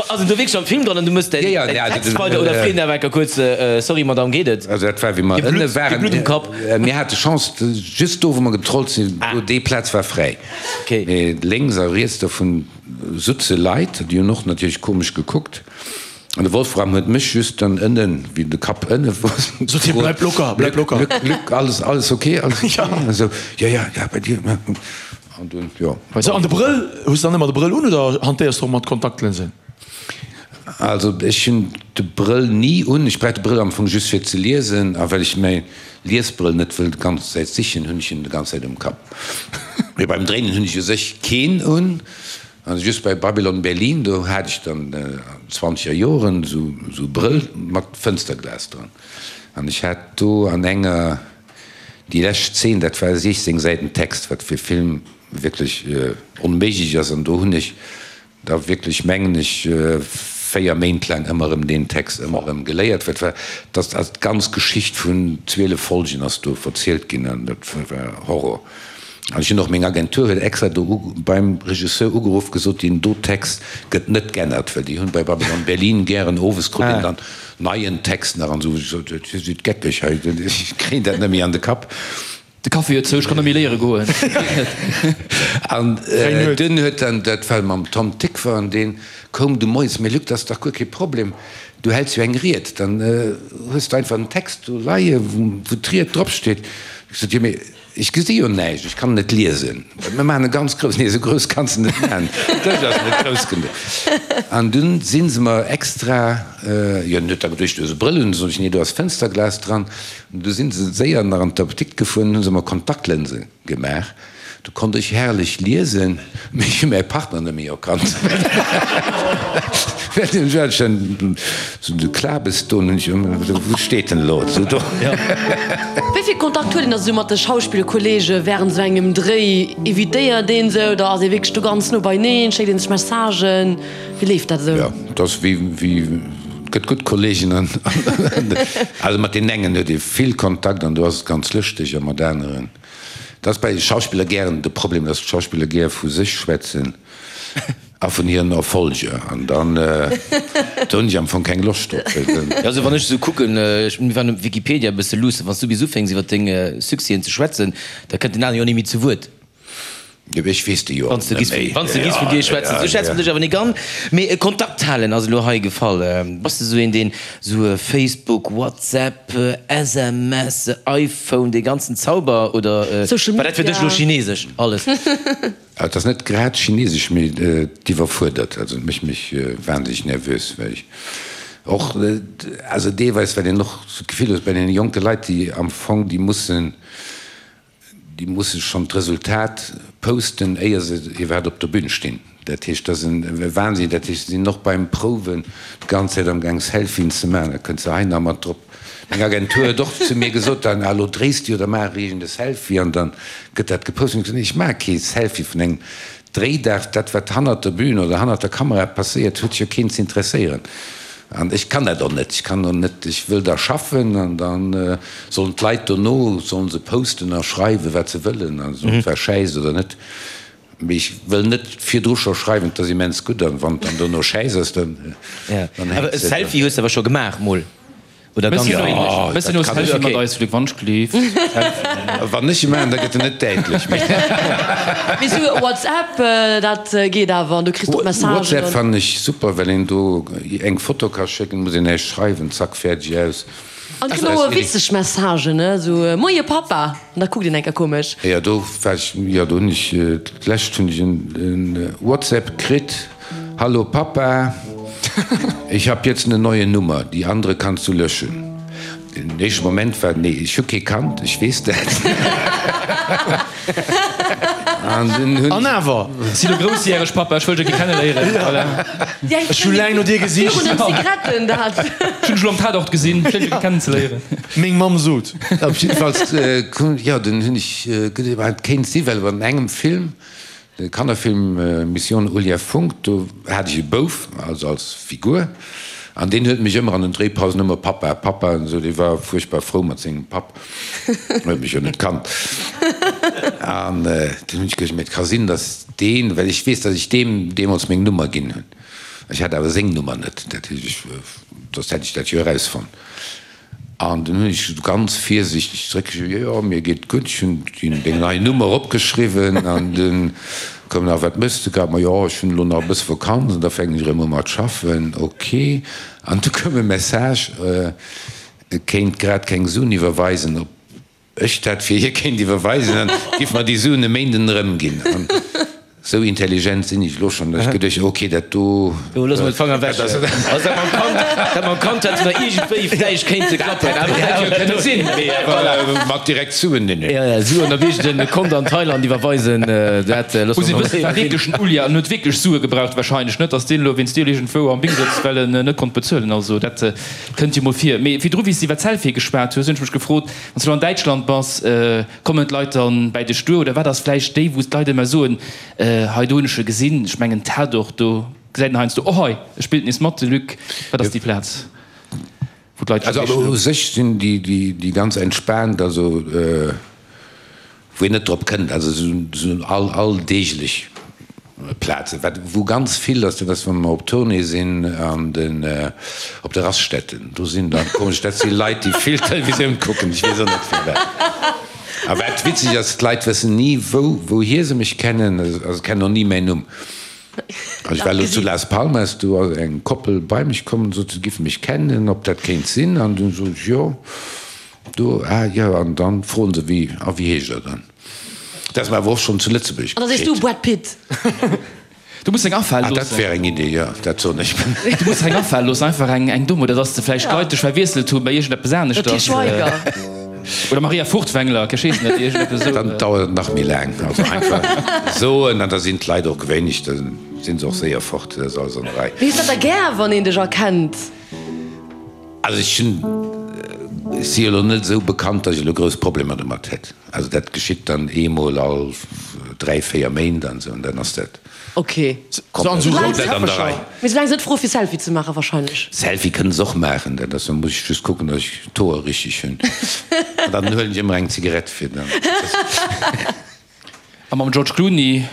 Ass en do wierklech am Film dran an du mëss däin Text weider oder freet en awer enker kuerz, Sorry Madame, geet et? Also dat war wéi mer ënne waren. Blutt um Kapp. Mir hate Chance, just do wou mer getrollt sinn, do déi Plaz war fräi. Mee lénks a riets dovun sutze Leit, déi hunn och natierlech komesch gekuckt. An de Wolfram huet mech just dann ënnen, wéi de Kapp ënne wor, Sot hie, Bleib locker, bleib locker. Luc, Luc, alles, alles ok, alles ok? An esou, Jo, jo, jo, bei dir? An dunn, jo. Sou, an de Brëll, hues de dann ëmmer de Brëll un oder hantéiers de och mat Kontaktlinsen? Also ech hunn de Brëll ni un. Ech brauch de Brëll am Fong just fir ze liesen a well ech mäi Liesbrëll net wëll d'ganz Zäit sichen, hunn ech en de ganz Zäit um Kapp. Mee beim Dréinen hunn ech u sech keen un. Also just bei Babylon Berlin, do hat ech dann an zwanzeger Joren esou e Brëll mat Fënsterglas dran. An ech hat do an enger, déi lescht Zeen, dat war 16 Säiten Text, wat fir Film wierklech onméiglech ass. An do hunn ech da wierklech, mengen ech, 4 Méint laang ëmmer erëm deen Text ëmmer erëm geléiert. Wat war, dat ass d'ganz Geschicht vun 12 Folgen ass do verzielt ginn an dat war Horror. An ech hunn och, meng Agentur huet extra do beim Regisseur ugeruff, gesot, deen do Text gëtt net g'ännert, well déi hunn bei Babylon Berlin gären owes krut een dann neien Text nach an esou. Ech sot, Dir sidd geckeg hei, ech kréien dat net méi an de Kapp. De Café huet zou, ech kann net méi léiere goen, geet net. An dunn huet dann, dat war mam Tom Tykwer, an dee koum du moies, Mee Luc, dat ass dach guer kee Problem, du häls jo eng Ried, dann hues de einfach en Text do leie wou d'Ried dropsteet. Ech sot, Jo, mee Ech gesi jo näischt, ech kann net liesen. Mir maachen e ganz grouss. Nee, esou grouss kanns de net maachen, den Dësch ass net grouss genuch. An dunn si se mer extra, jo, en huet da geduecht, du hues e Brëll un. Sot ech, nee, do ass Fënsterglas dran. An du si se séier nach an d'Apdikt gefuer an hu se mer Kontaktlënse gemaach. Du konnt ech herrlech liesen, mee ech hu mäi Partner net méi erkannt. Well den hat schon sou de Klabes do, hunn ech ëmmer gesot, wou steet en elo? Sou do. Wéi vill Kontakt huet een da sou mat de Schauspillkolleege wärend sou engem Dréi? Evitéiert een se oder ass ee wierklech do ganz no beineen? Schéckt een sech Messagen? Wéi leeft dat esou? Jo, et ass wéi, wéi, et gëtt gutt Kolleegen an, also mat deenen engen huet ee vill Kontakt an do ass et ganz lëschteg a mat aneren, dat ass bei Schauspiller gären de Problem, datt d'Schauspiller gär vu sech schwätzen. A vun hiren Erfolger. An dann, do hunn ech am Fong keng Loscht drop. Jo, also wann ech esou kucken, ech, mir waren op Wikipedia e bësse luussen, wann s du bis ufänks iwwer deng Succèsen ze schwätzen, da kënnt den aneren jo ni méi zu Wuert. Jo, ech weess déi jo och net méi. Wann s de giss vun dir schwätzen, sou schätze mer dech awer nik an. Mee Kontakt halen ass elo hei gefall. Bass de esou een, deen esou Facebook, WhatsApp, SMS, iPhone, dee ganzen Zauber, oder war dat fir dech elo chinesesch alles? Et ass net grad chinesesch, mee et iwwerfuerdert. Also et mécht mech wahnsinneg nervös, well ech och, also deelweis, well een och sou d'Gefill huet bei deene jonke Leit, déi am Fong, déi mussen, déi musse schonn d'Resultat posten, éier se iwwerhaapt op der Bühn stinn. Dat heescht, dat ass e Wahnsinn. Dat heescht, se sinn och beim Prouwen d'ganz Zäit amgaang Selfien ze maachen, da kënnt se hei nach mat drop. Meng Agentur huet och zu mir gesot dann, ah lo dréis du jo, da maach iergend e Selfie an dann gëtt dat gepost. Hunn ech gesot, nee ech maache kee Selfie vun engem Dréidag, dat wat hannert der Bühn oder hannert der Kamera passéiert huet jo keen ze interesséieren. An ech kann dat och net, ech kann och net, ech wëll da schaffen an da sollen d'Leit dono sollen se posten a schreiwen wat se wëllen an ob et war schäiss oder net. Mee ech wëll net virdru scho schreiwen, et ass immens gutt, an wann et dann dono schäiss ass, dann dann hänkt se. E Selfie hues de awer scho gemaach mol, oder ganz wéineg? Mëss jo no Selfie mat eis, Luc, wann ech gleef. Wann ech e maachen, da gëtt en net däitlech méi. Mee sou WhatsApp, dat geet awer, an du kriss och Messagen. WhatsApp fannen ech super, well een do eng Foto ka schécken, muss een näischt schreiwen, zack, fäerdeg, aus. An et ginn och witzeg Messagen, ne, sou Moie Pappa, an da kuckt een eng Kéier komesch. Jo, do war ech, jo, do hunn ech, d'lescht hunn ech en WhatsApp kritt, Hallo Papa, ich hab jetzt eine neue Nummer, die andere kannst du löschen. Den éischte Moment war, nee, ech hu kee Kand, ech weess dat. An dunn hunn. An awer! Si lo groussjäreg, Pappa, ech wëll dech e kenneléieren. Voilà. Ech hu laang no dir gesicht. Virun den Zigaretten, dat. Ech hunn dech lo am Tatort gesinn, schéin dech e kennenzeléieren. Meng Mamm sot. Op jiddefalls, jo, dunn hunn ech geduecht, et kéint si well an engem Film, De Kannerfilm Mission Ulia Funk, do hat ech e Bouf, also als Figur, an deen huet mech ëmmer an den Dréipausen ëmmer Pappa, Pappa an esou, dee war fuerchtbar frou mat sengem Papp, huet mech jo net kannt. An dunn hunn ech geduecht, mee et ka sinn, datt deen, well ech weess, datt ech deem deemools meng Nummer ginn hunn, ech hat awer seng Nummer net, dat heescht, ech, soss hätt ech dat jo erausfonnt. An dunn hunn ech esou ganz virsiichteg zeréckgeschriwwen, Jo, jo, mir geet et gutt, ech hunn deng nei Nummer opgeschriwwen. An dunn koum nach, Wat méchs de grad? Ma jo, ech hunn elo nach e bësse Vakanz an da fänken ech erëm u mat schaffen. Ok. An du koum e Message, e kéint grad keng Suen iwwerweisen, ob ech dat fir hie kéint iwwerweisen, dann giff mer déi Suen e Méinden erëmginn. An esou intelligent sinn ech elo schonn, datt ech geduecht hunn, ok, dat do. Do loosse mer d'Fanger ewech. Also dat mam Kand, dat mam Kand hätt nach iergendwéi vläicht kéinte klappen, awer dat hätt jo kënne sinn. Mee awer mat direkt Suen, nee, nee. Jo, jo, Suen op iergend e Kont an Thailand iwwerweisen, dat loosse mer mol war wierklech den Ulli an huet wierklech Sue gebraucht wahrscheinlech, net datt deen elo wéinst dir iergendwou am Bing sëtzt, well en net konnt bezuelen. Also dat kënnt jo mol vir. Mee virdru, wéi s de iwwer d'Selfie geschwat hues, hunn ech mech gefrot, Wann s du an Däitschland bass, kommen d'Leit dann bäi dech duer oder wat ass vläicht déi, wou d'Leit ëmmer soen, hei do hunn ech e gesinn, ech mengen Tatort, do gesäit een heiansdo, oh hei e spillt nees mat, de Luc. Wat ass déi Plaz, wou d'Leit dech Also u sech sinn déi ganz entspaant, also wou een net drop kënnt, also esou alldeeglech Plazen. Wat wou ganz vill ass, dat ass wa mer op Tournée sinn an den op de Raststätten, do sinn dann komesch, dat si Leit déi vill Televisioun kucken, ech weess och net firwat. A wat witzeg ass, d'Leit wëssen ni wou wouhier se mech kennen, also se kennen och ni mäin Numm. Also ech war elo zu Las Palmas, do ass eng Koppel bei mech komm an sot se giffe mech kennen, ob dat kéint sinn an dunn sot ech jo. Do, ah jo, an dann froen se wéi, a wéi heescht der dann? Dat ass mer awer och schonn zu Lëtzebuerg An da sees du geschitt. Brad Pitt. Du muss deng afale Ah, dat loossen. wär eng Idee, jo, dat soen ech. Du muss deng afale loossen, einfach eng, eng domm, oder dass de vläicht d'Leit dech verwiesselt hu bei iergendeppes Der Til aneschters. Schweiger. Oder Maria Furtwängler, ech weess net, iergendeppes esou. Dann dauert et nach méi laang. Also einfach soen, an da sinn d'Leit och gewéineg, da si se och séier fort, dat ass alles an der Rei. Mee hues dat da gär, wann een dech erkennt? Also ech hunn, ech si jo elo net esou bekannt, datt ech elo grouss Problemer domat hätt. Also dat geschitt dann eemol all 3, 4 Méint an esou an dann ass dat Ok. komplett an der Rei. Mee soulaang se net froe fir Selfie ze maachen wahrscheinlech. Selfie kënne se och maachen, dat ass, da muss ech just kucken, datt ech d'Hoer richteg hunn an dann huelen ech ëmmer eng Zigarett fir dann. A mam George Clooney,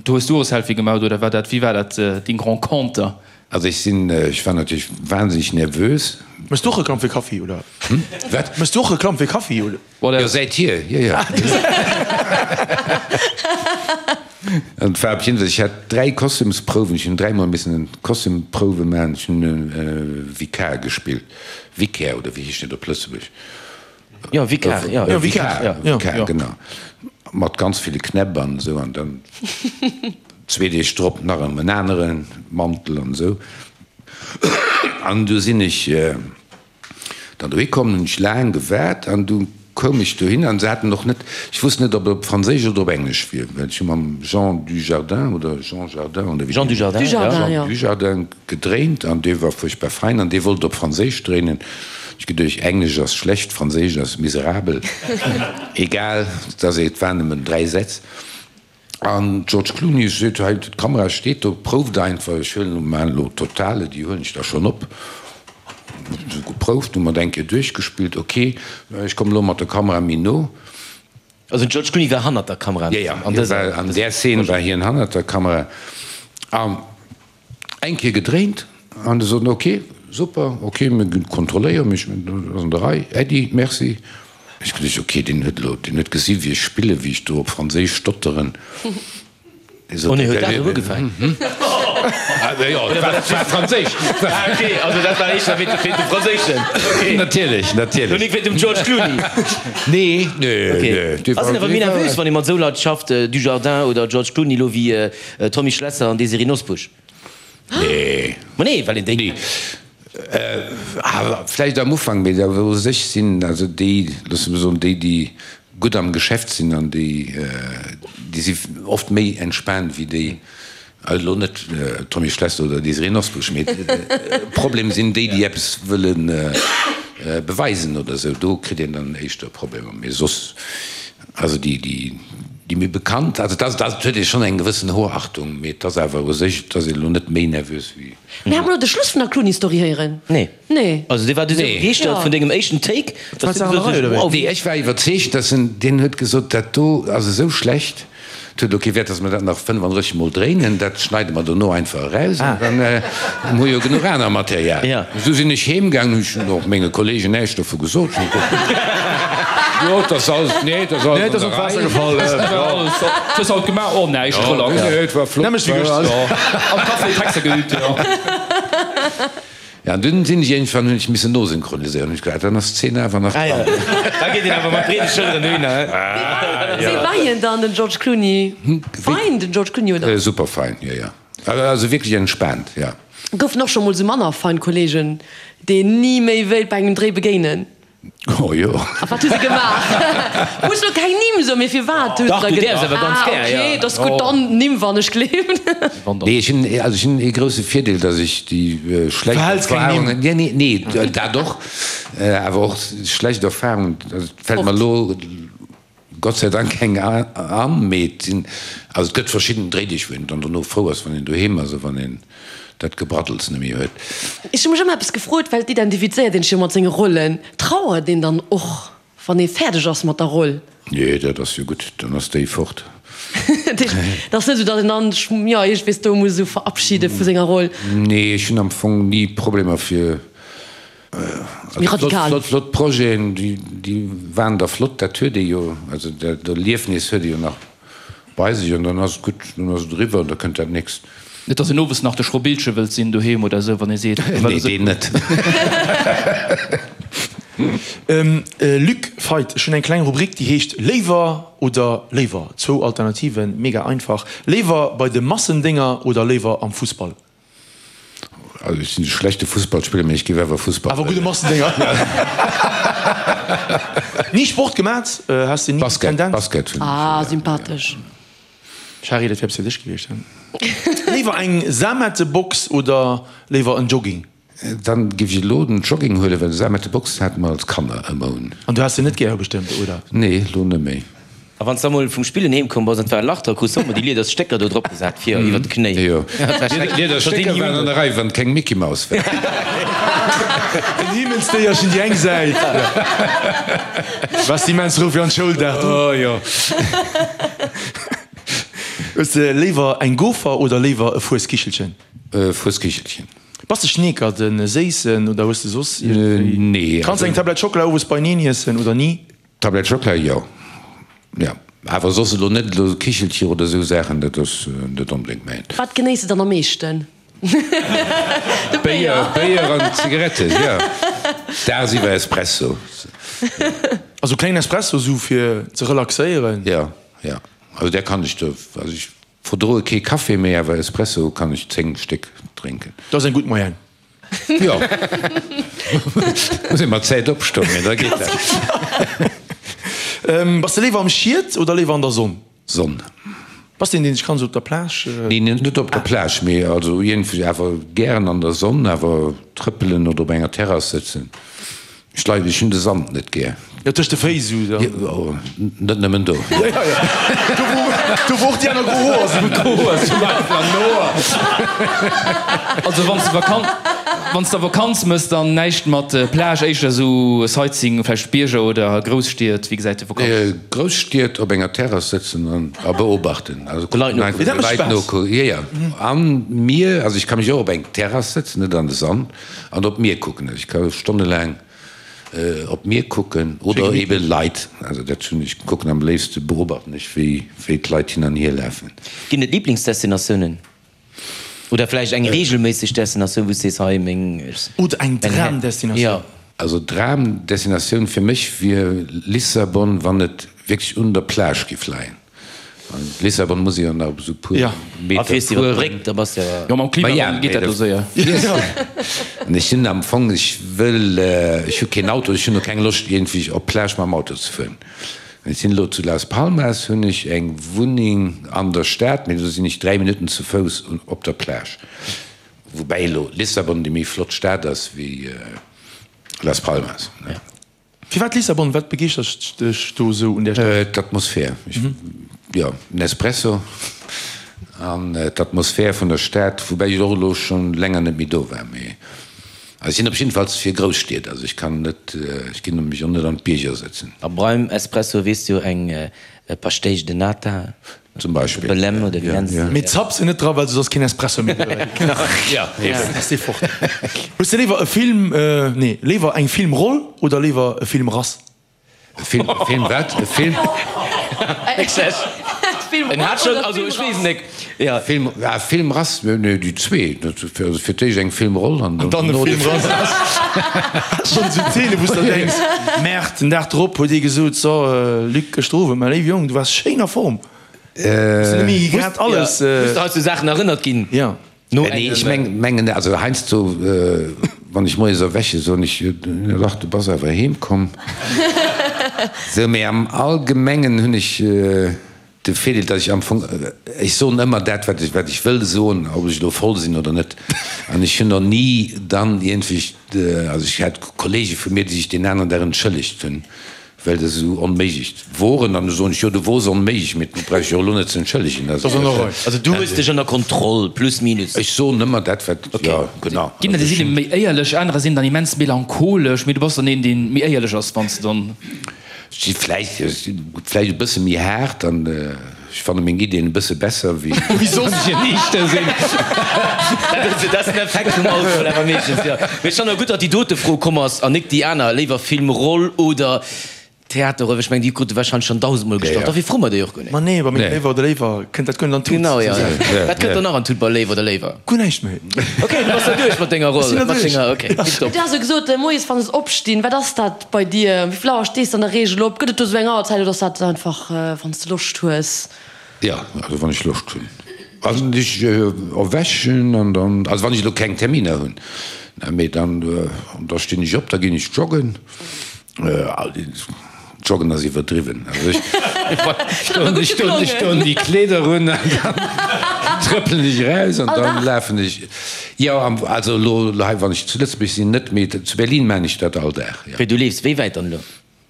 do hues du och e Selfie gemacht, oder war dat, wéi war dat deng Renconter? Also ech sinn, ech war natierlech wahnsinneg nervös. Mëss du och Reklamm fir Kaffi, oder? Hm? Wat? Mëss du och Reklamm fir Kaffi, oder? Jo, säithier, jo, jo. An et war op jidde Fall, ech hat 3 Kostümsprouwen, ech hunn dräimol missen Kostümprouwe maachen, ech hunn e Vikar gespillt, Vicaire, oder wéi heescht dat op Lëtzebuerg? Jo, Vikar, jo. Jo, Vikar, jo, Vikar, genau. Mat ganz ville Knäpp an esou an dann zwee Deeg drop nach erëm en anere Mantel an esou. An du sinn ech dann dohi komm, hunn ech laang gewaart an du. koum ech dohin an se haten och net, ech wosst net, ob et op Franséisch oder op Englesch wier, well ech hu mam Jean Dujardin oder Jean Jardin oder wéi Jean Dujardin, ja. Jean Dujardin gedréint an dee war fuerchtbar fein an dee wollt op Franséisch dréinen. Ech geduecht, Englesch ass schlecht, Franséisch ass miserabel. Egal, dass et waren nëmmen 3 Sätz. An George Clooney seet, hei d'Kamera steet do, prouft einfach, ech huelen elo, maachen elo Totale, déi huelen ech da schonn op. Hu geprouft, hu mer et eng Kéier duerchgespillt, ok, ech kommen elo mat der Kamera méi no. Also den George Clooney war hannert der Kamera? Jo, jo, an där Szene war hien hannert der Kamera. An Eng Kéier gedréint an se soten, ok, super, ok, mir kontrolléieren, mee ech mengen, dat ass an der Rei, Äddi, merci. Ech geduecht, ok, deen huet elo, deen huet gesi wéi ech spillen, wéi ech do op Franséisch stotteren. Dee sot, Oh nee, huet dat elo ugefaangen? Jo, et war Franséisch. Ah ok, also dat war éischter wéint dem Franséischen, ok. Natierlech, natierlech. Lo nik wéint dem George Clooney. Nee, nee, nee. Ok. Ass een awer méi nervös, wann ee mat esou Leit schafft, Dujardin oder George Clooney, elo wéi Tommy Schlesser an Désirée Nosbusch. Nee. Ma nee, well een déi. Nee. Vläicht am Ufank, mee da wou sech sinn, also déi, loosse mer soen, déi, déi gutt am Geschäft sinn an déi, déi si oft méi entspaant wéi déi, also elo net Tommy Schlesser oder Désirée Nosbusch, mee Problem sinn déi, déi eppes wëlle beweisen oder esou, do kritt een dann éischter Problemer. Mee soss. Also déi, déi, déi méi bekannt, also dat, dat huet ee schonn eng gewëssen Hochachtung, mee et ass awer u sech, et ass een elo net méi nervös wéi. Mir hat mer elo de Schluss vun der Clooney-Story héieren. Nee. Nee. Also dee war du sou begeeschtert vun dengem éischten Take, dass du gesot hues, wow. Nee, ech war iwwerzeegt, dass en, deen huet gesot, dat do ass esou schlecht, Et huet elo kee Wäert, dass mer dat nach 35 Mol dréinen. Dat schneide mer dono einfach eraus an dann hu jo genuch aner Material. Esou sinn ech heem gaangen, hunn ech och menge Kollegen näischt dovu gesot. Jo, et ass alles, nee, et ass alles an der Rei. Hues haut gemaach? Oh, näischt, relax. Nee, et war flott. Am Café Texter geübt, jo. Ja, an dunn sinn ech iergendwann, hunn ech missen nosynchroniséieren, hunn ech gedacht, dann ass d'Zeen awer nach dran. Da geet een awer mat breede Schëlleren dohinner, he? Wéi war hien dann, den George Clooney? Fein, den George Clooney, oder? Super fein, jo, jo. Also wierklech entspaant, jo. Goufen och scho mol sou manner fein Kollegen, déi een ni méi wéilt bei engem Dréi begéinen? Oh jo. A wat hu se gemaach? Muss lo keng Nimm soen, mee firwat hu se Dach, da du däerfs awer ganz Ah, gär, jo. okay, dat ass gutt, dann Nimm wann ech gleewen. Nee, ech hunn, also ech hunn ee grousse Virdeel, datt ech déi schlecht Verhälls keng Nimm. Erfahrungen, nee, nee, nee, dat och, awer och schlecht Erfahrungen, also et fält mer elo Gott sei Dank keng an, mee et sinn, also et gëtt verschidden Dréideeg, wou een dann dono frou ass, wann een doheem ass a wann een dat Gebraddels net méi huet. Ech hu mech ëmmer eppes gefrot, well et identifizéiert een sech jo mat senge Rollen. Trauert een dann och, wann ee fäerdeg ass mat der Roll? Nee, dat ass jo gutt, dann ass déi fort. Dat heescht, et ass net esou, datt een dann sech, jo, iergendwees do muss esou verabschide vu senger Roll? Nee, ech hunn am Fong ni Problemer fir Méi radikal. Flott, flott Projeten, déi waren da flott, dat huet ee jo, also dat Erliefnis huet ee jo nach bei sech an dann ass et gutt, dann ass et eriwwer an da kënnt dat nächst. Net, dass een owes nach de Schrobillche wëllt sinn doheem oder esou, wann ee seet. Nee, deen net. Luc Feit, ech hunn eng kleng Rubrik, déi heescht Léiwer oder léiwer. Zwou Alternativen, mega einfach. Léiwer bei de Massendénger oder léiwer am Fussball? Also ech sinn e schlechte Fussballspiller, mee ech géif awer Fussball Awer gudde Massendénger. Ni Sport gemat? Has de ni Basket, Tendenz? Basket hunn ech. Ah, sympathesch. Shari, dat wär eppes fir dech gewiescht, he? Léiwer eng Samettebox oder léiwer en Jogging? Dann géif ech elo den Jogging huelen, well Samettebox hate mer als Kanner ëmmer un. An du has se net gär bestëmmt, oder? Nee, elo net méi. A wann s da mol vum Spillen heem komm bass an et war e Lach dra, krus de och mol déi lieders Stécker do drop gesat fir iwwer d'Knéi. Jo, lieders Stécker waren an der Rei, wann et keng Mickey Maus war. En Himmelsdéierchen déi eng Säit. Waars de immens frou fir an d'Schoul dag du? Oh jo. Hues de léiwer eng Gofer oder léiwer e Fueskichelchen? Fueskichelchen. Bass de Schneekert, en séissen oder hues de soss iergendwéi? Nee. Kanns eng Tablett Schockela owes beineen iessen oder ni? Tablett Schockela, jo. Jo. Awer soss elo net elo Kichelcher oder esou Saachen, dat ass net onbedéngt mäint. Wat genéiss de dann am meeschten? De Béier. Béier an Zigaretten, jo. Dagsiwwer Espresso. Also klengen Espresso esou fir ze relaxéieren? Jo, jo. Also där kann ech do, also ech verdroe kee Café méi, awer Espresso kann ech 10 Stéck drénken. Dat ass eng gutt Moyenne. Jo. Muss ee mat Zäit opstoen, mee da geet dat. Bass de léiwer am Schied oder léiwer an der Sonn? Sonn. Bass de een, deen sech kann esou op der Plage. Neen, net op der Plage, mee also iergendwéi awer gären an der Sonn, awer trëppelen oder op enger Terrass sëtzen. Ech leiden, ech hunn de Sand net gär. Jo, tëscht de Féiss esou dann. Jo, net nëmmen do. Jo, jo, jo. Do wou, do wou och déi aner gro Hoer sinn. Gro Hoer zum Beispill an Hoer. Also wann s de Vakanz, wann s de Vakanz mëss, dann näischt mat Plage, éischter esou Sightseeing, vläicht Bierger oder Grousstied. Wéi gesäit de Vakanz? Grousstied op enger Terrass sëtzen an a beobachten. Also De Leit nokucken. De Leit nokucken, jo, jo. An Mier, also ech ka mech och op eng Terrass sëtzen, net an de Sand. An op d'Mier kucken. Also ech ka stonnelaang op d'Mier kucken oder ebe Leit. Also dat hunn ech kucken am léifste beobachten ech wéi wéi d'Leit hin an hier lafen. Ginn et Liblingsdestinatiounen? Oder vläicht eng reegelméisseg Destinatioun wou s sees hei meng Oder eng Dramdestinatioun? Jo. Also Dramdestinatioun fir mech wier Lissabon, wann et wierklech un der Plage giff leien. Lissabon muss ee jo nach esou puer Meter fueren. Jo, mam Klimawandel geet dat elo séier. An ech sinn am Fong, ech wëll, ech hu keen Auto, ech hunn och keng Loscht iergendwéi op d'Plage mam Auto ze fueren. Ech sinn elo zu Las Palmas, hunn ech eng Wunneng an der Stad, mee do sinn ech 3 Minutten zu Fouss op der Plage. Woubäi elo Lissabon déi méi flott Stad ass wéi Las Palmas. Firwat Lissabon? Wat begeeschtert dech do esou un där Stad? D'Atmosphär. Jo, den Espresso an d'Atmosphär vun der Stad, woubäi ech och elo schonn länger net méi do war. Mee ech sinn op jiddefalls fir Grousstied, also ech kann net, ech ginn mech och net an d'Bierger sëtzen. A beim Espresso weess du jo eng Pastéis de Nata. Zum Beispill. Belem oder wéi nenns de se? Mee zapp se net dra, well soss ass keen Espresso méi dobäi. Ja, eben. Ass dee fort. Hues de léiwer e Film, nee, léiwer eng Filmroll oder léiwer e Filmrass? E Film, e Film wat? E Film? En hat schonn, also ech weess net, ja. Film, ah, Filmrass, nee, déi zwee. Also fir d'éischt eng Filmroll an dann e Filmrass. Schonn esou Zeene wou s de der denks, Merde, den Dag drop huet ee gesot, so Luc, gëschter Owend, mäi léiwe Jong, du waars schéin a Form, hues de net méi grad alles. Hues de hei zu Saachen erënnert ginn? Jo. No Nee, ech mengen, also heiansdo, wann ech moies erwäche, soen ech, jo dach, du bass awer heem komm. Sou, mee am Allgemengen hunn ech De Virdeel, datt ech am Fong, ech soen ëmmer dat, wat ech, wat ech wëll soen, ob ech elo voll sinn oder net. An ech hunn och ni dann iergendwéi, also ech hat Kollege vu mir, déi sech deen aneren Dag entschëllegt hunn, well se esou onméiglech woren. An du soen ech, jo, du wors onméiglech, mee du brauchs dech jo elo net ze entschëllegen. Also du hues dech ënner Kontroll, plus minus. Ech soen ëmmer dat, wat, jo, genau. Ginn der, déi sinn méi éierlech, anerer sinn dann immens melancholesch, mee du bass dann een, dee méi éierlech ass, wann s de dann. Ech si vläicht, ech si vläicht e bësse méi haart an ech fanne meng Ideen e bësse besser wéi wéi soss ech eniichter sinn. Dat ass den Effekt vum Alkohol awer meeschtens, jo. Mee ech fannen och gutt, datt déi dote Fro komm ass an nik déi aner, léiwer Filmroll oder Theaterroll, well ech mengen, déi krute warscheinlech schonn dausendmol gestallt. Dofir froe mer déi och guer net. Ma nee, bei mengem Léiwer oder Léiwer kënnt dat guer net an d'Tut. Genau, jo. Wat kënnt dann nach an d'Tut bei Léiwer oder Léiwer? Guer näischt méi. Ok, du bass da duerch mat denger Roll, mat denger, ok, tiptop. Du has jo gesot, moies wann s opstinn, wat ass dat? Bei dir, wéi vill Auer stees de an der Reegel op? Gëtt et do sou eng Auerzäit oder ass dat einfach wann s de Loscht hues? Jo, also wann ech Loscht hunn. Also ech erwächen an dann, also wann ech elo keng Terminer hunn, mee dann, da stinn ech op, da ginn ech joggen. Joggen ass iwwerdriwwen. Also ech ech ech doen déi Kleeder un an dann trëppelen ech eraus an dann lafen ech. Jo, also elo hei, wann ech zu Lëtzebuerg sinn, net, mee zu Berlin maan ech dat all Dag, jo. Wéi, du leefs wéi wäit dann elo?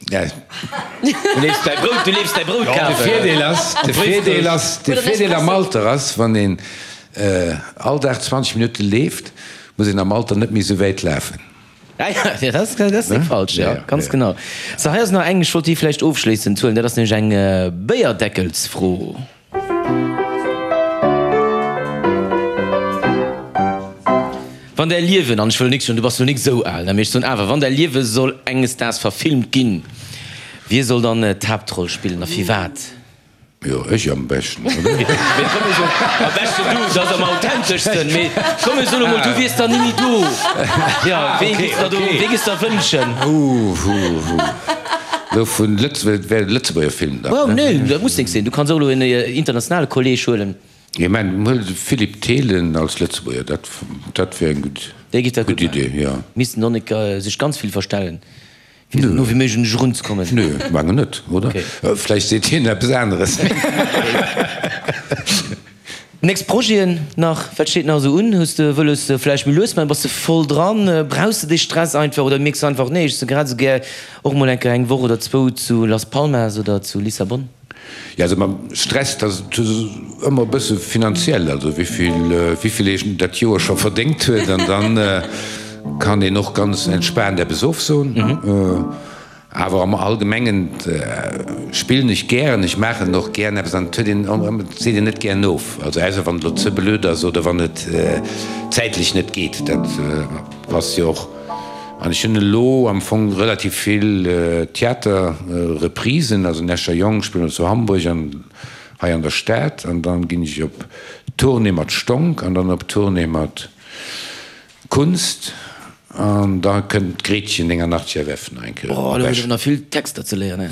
Ja. Du leefs däi Brout, du leefs däi Brout kafen. De Virdeel ass, de Virdeel ass, de Virdeel am Alter ass, wann een all Dag 20 Minutte leeft, muss een am Alter net méi esou wäit lafen. Ja, ja, dat ass, dat ass net falsch, jo, ganz genau. Sou, hei ass nach eng, ech wollt déi vläicht ofschléissend huelen, dat ass nämlech eng Béierdeckelsfro. Wann däi Liewen, an ech wëll nik soen, du bass lo nik esou al, ne, mee ech soen awer, wann däi Liewe soll enges Daags verfilmt ginn, wie soll dann d'Haaptroll spillen a firwat? Jo, ech am beschten, oder? Mee komm mir soen, am beschten du, dat ass am authenteschsten, mee komm mir soen emol, du wiers dann nimmi do. Jo, wee giffs der do, wee giffs der wënschen? Hu, hu, hu. Lo vun Lëtzebuerg, wär e Lëtzebuerger Film dann, ne? Nee, dat muss nix sinn. Du kanns och elo en internationale Kolleg huelen. Ech mengen, huel de Philippe Thelen als Lëtzebuerger, dat, dat wär eng gutt, Dee giff dat gutt gutt Idee, maachen. jo. Missten och nik sech ganz vill verstellen. Fir esou no wéi méiglech un dech erunzekommen? Nö, mengen net, oder? Vläicht seet hien eppes aneres. Nächst Projeten nach, wat steet nach esou un? Hues de wëlles vläicht méi lues maachen? Bass de voll dran? Brauchs de dee Stress einfach oder mierks de einfach, nee, ech si grad esou gär och mol eng Kéier eng Woch oder zwou zu Las Palmas oder zu Lissabon? Jo, also mam Stress, dat ass ëmmer e bësse finanziell, also wéivill, wéivill een dat Joer scho verdéngt huet an dann kann een och ganz entspaant eppes ofsoen. Awer am Allgemengen spillen ech gären, ech maachen och gären eppes an et huet een, et seet een net gären of, also ausser wann et elo ze blöd ass oder wann et zäitlech net geet, dat passt jo och. An ech hunn elo am Fong relativ vill Theaterreprisen, also den Escher Jong spillen elo zu Hamburg an hei an der Stad an dann ginn ech op Tournée mat Stonk an dann op Tournée mat Kunst an da kënnt d'Gretchen 89 FF nach eng Kéier op Esch. Do hues awer nach vill Texter ze léieren, he?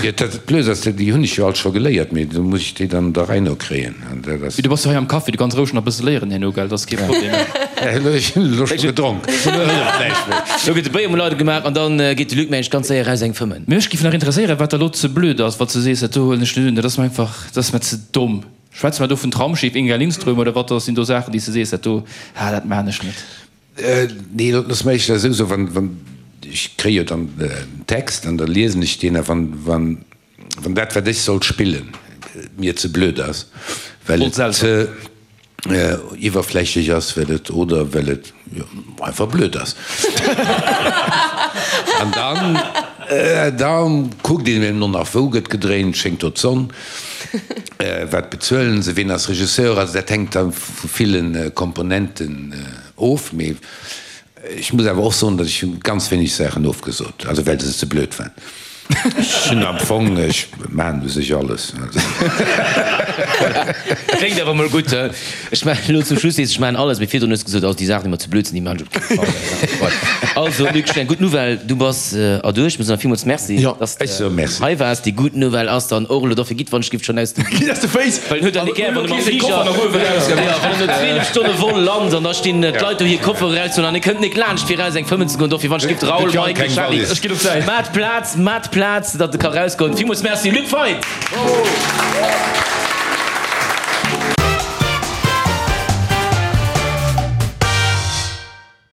Jo, dat Blöd ass, déi hunn ech jo all scho geléiert, mee do muss ech déi dann der Rei no kréien an dat ass. Mee du bass jo hei am Café, du kanns roueg nach e bësse léieren herno, gell? Dat ass kee Problem. Elo ech hunn elo scho gedronk, elo hëlleft näischt méi. Elo gëtt de Béier emol eidel gemaach an dann geet de Luc mengen ech ganz séier eraus eng fëmmen. Mech giff nach interesséieren, wat der elo ze blöd ass, wann s du sees, dat do huelen ech net un, dat ass mer einfach, dat ass mer ze domm. Schwätze mer do vun Traumschiff, Inga Lindström, oder wat sinn do Saachen, déi s de sees, dat do, ah, dat maan ech net? Nee, looss mer éischter esou soen, wann, wann, ech kréie jo dann den Text an da liesen ech deen a wann, wann, wann dat, wat ech soll spillen, mir ze blöd ass, well et ze iwwerflächlech ass, well et, oder well et einfach blöd ass, an dann, da kuckt een eben och nach, wou gëtt gedréint, schéngt do d'Sonn, wat bezuelen se, ween ass Regisseur, also dat hänkt da vu ville Komponenten of. Mee ech muss awer och soen, datt ech hu ganz wéineg Saachen ofgesot, also well se ze blöd waren. Ech hunn am Fong, ech maachen u sech alles. Dat kléngt awer mol gutt. Ech maachen elo zum Schluss, sees ech maachen alles, mee virdrun hues de gesot, also déi Saachen, déi mer ze blöd sinn, déi maachen ech op kee Fall. Also Luc, eng gutt Nouvelle, du bass erduerch. Mir soen der villmools Merci, dass de hei waars. Déi gutt Nouvelle ass dann och elo, dofir gitt wann ech giff schonn aus dem. Gitt aus de Féiss! Well en huet dann net gär, wann e mam Fliger, jo, wann en no 12 Stonne Vol lant an da stinn d'Leit do hir Koffere erauszehuelen an e kënnt nik laanscht fir eraus eng fëmmen ze goen. Dofir wann ech giff, Raoul, Mike, Charly, maat Plaz, maat Plaz, datt e ka rausgoen. Villmools Merci, Luc Feit!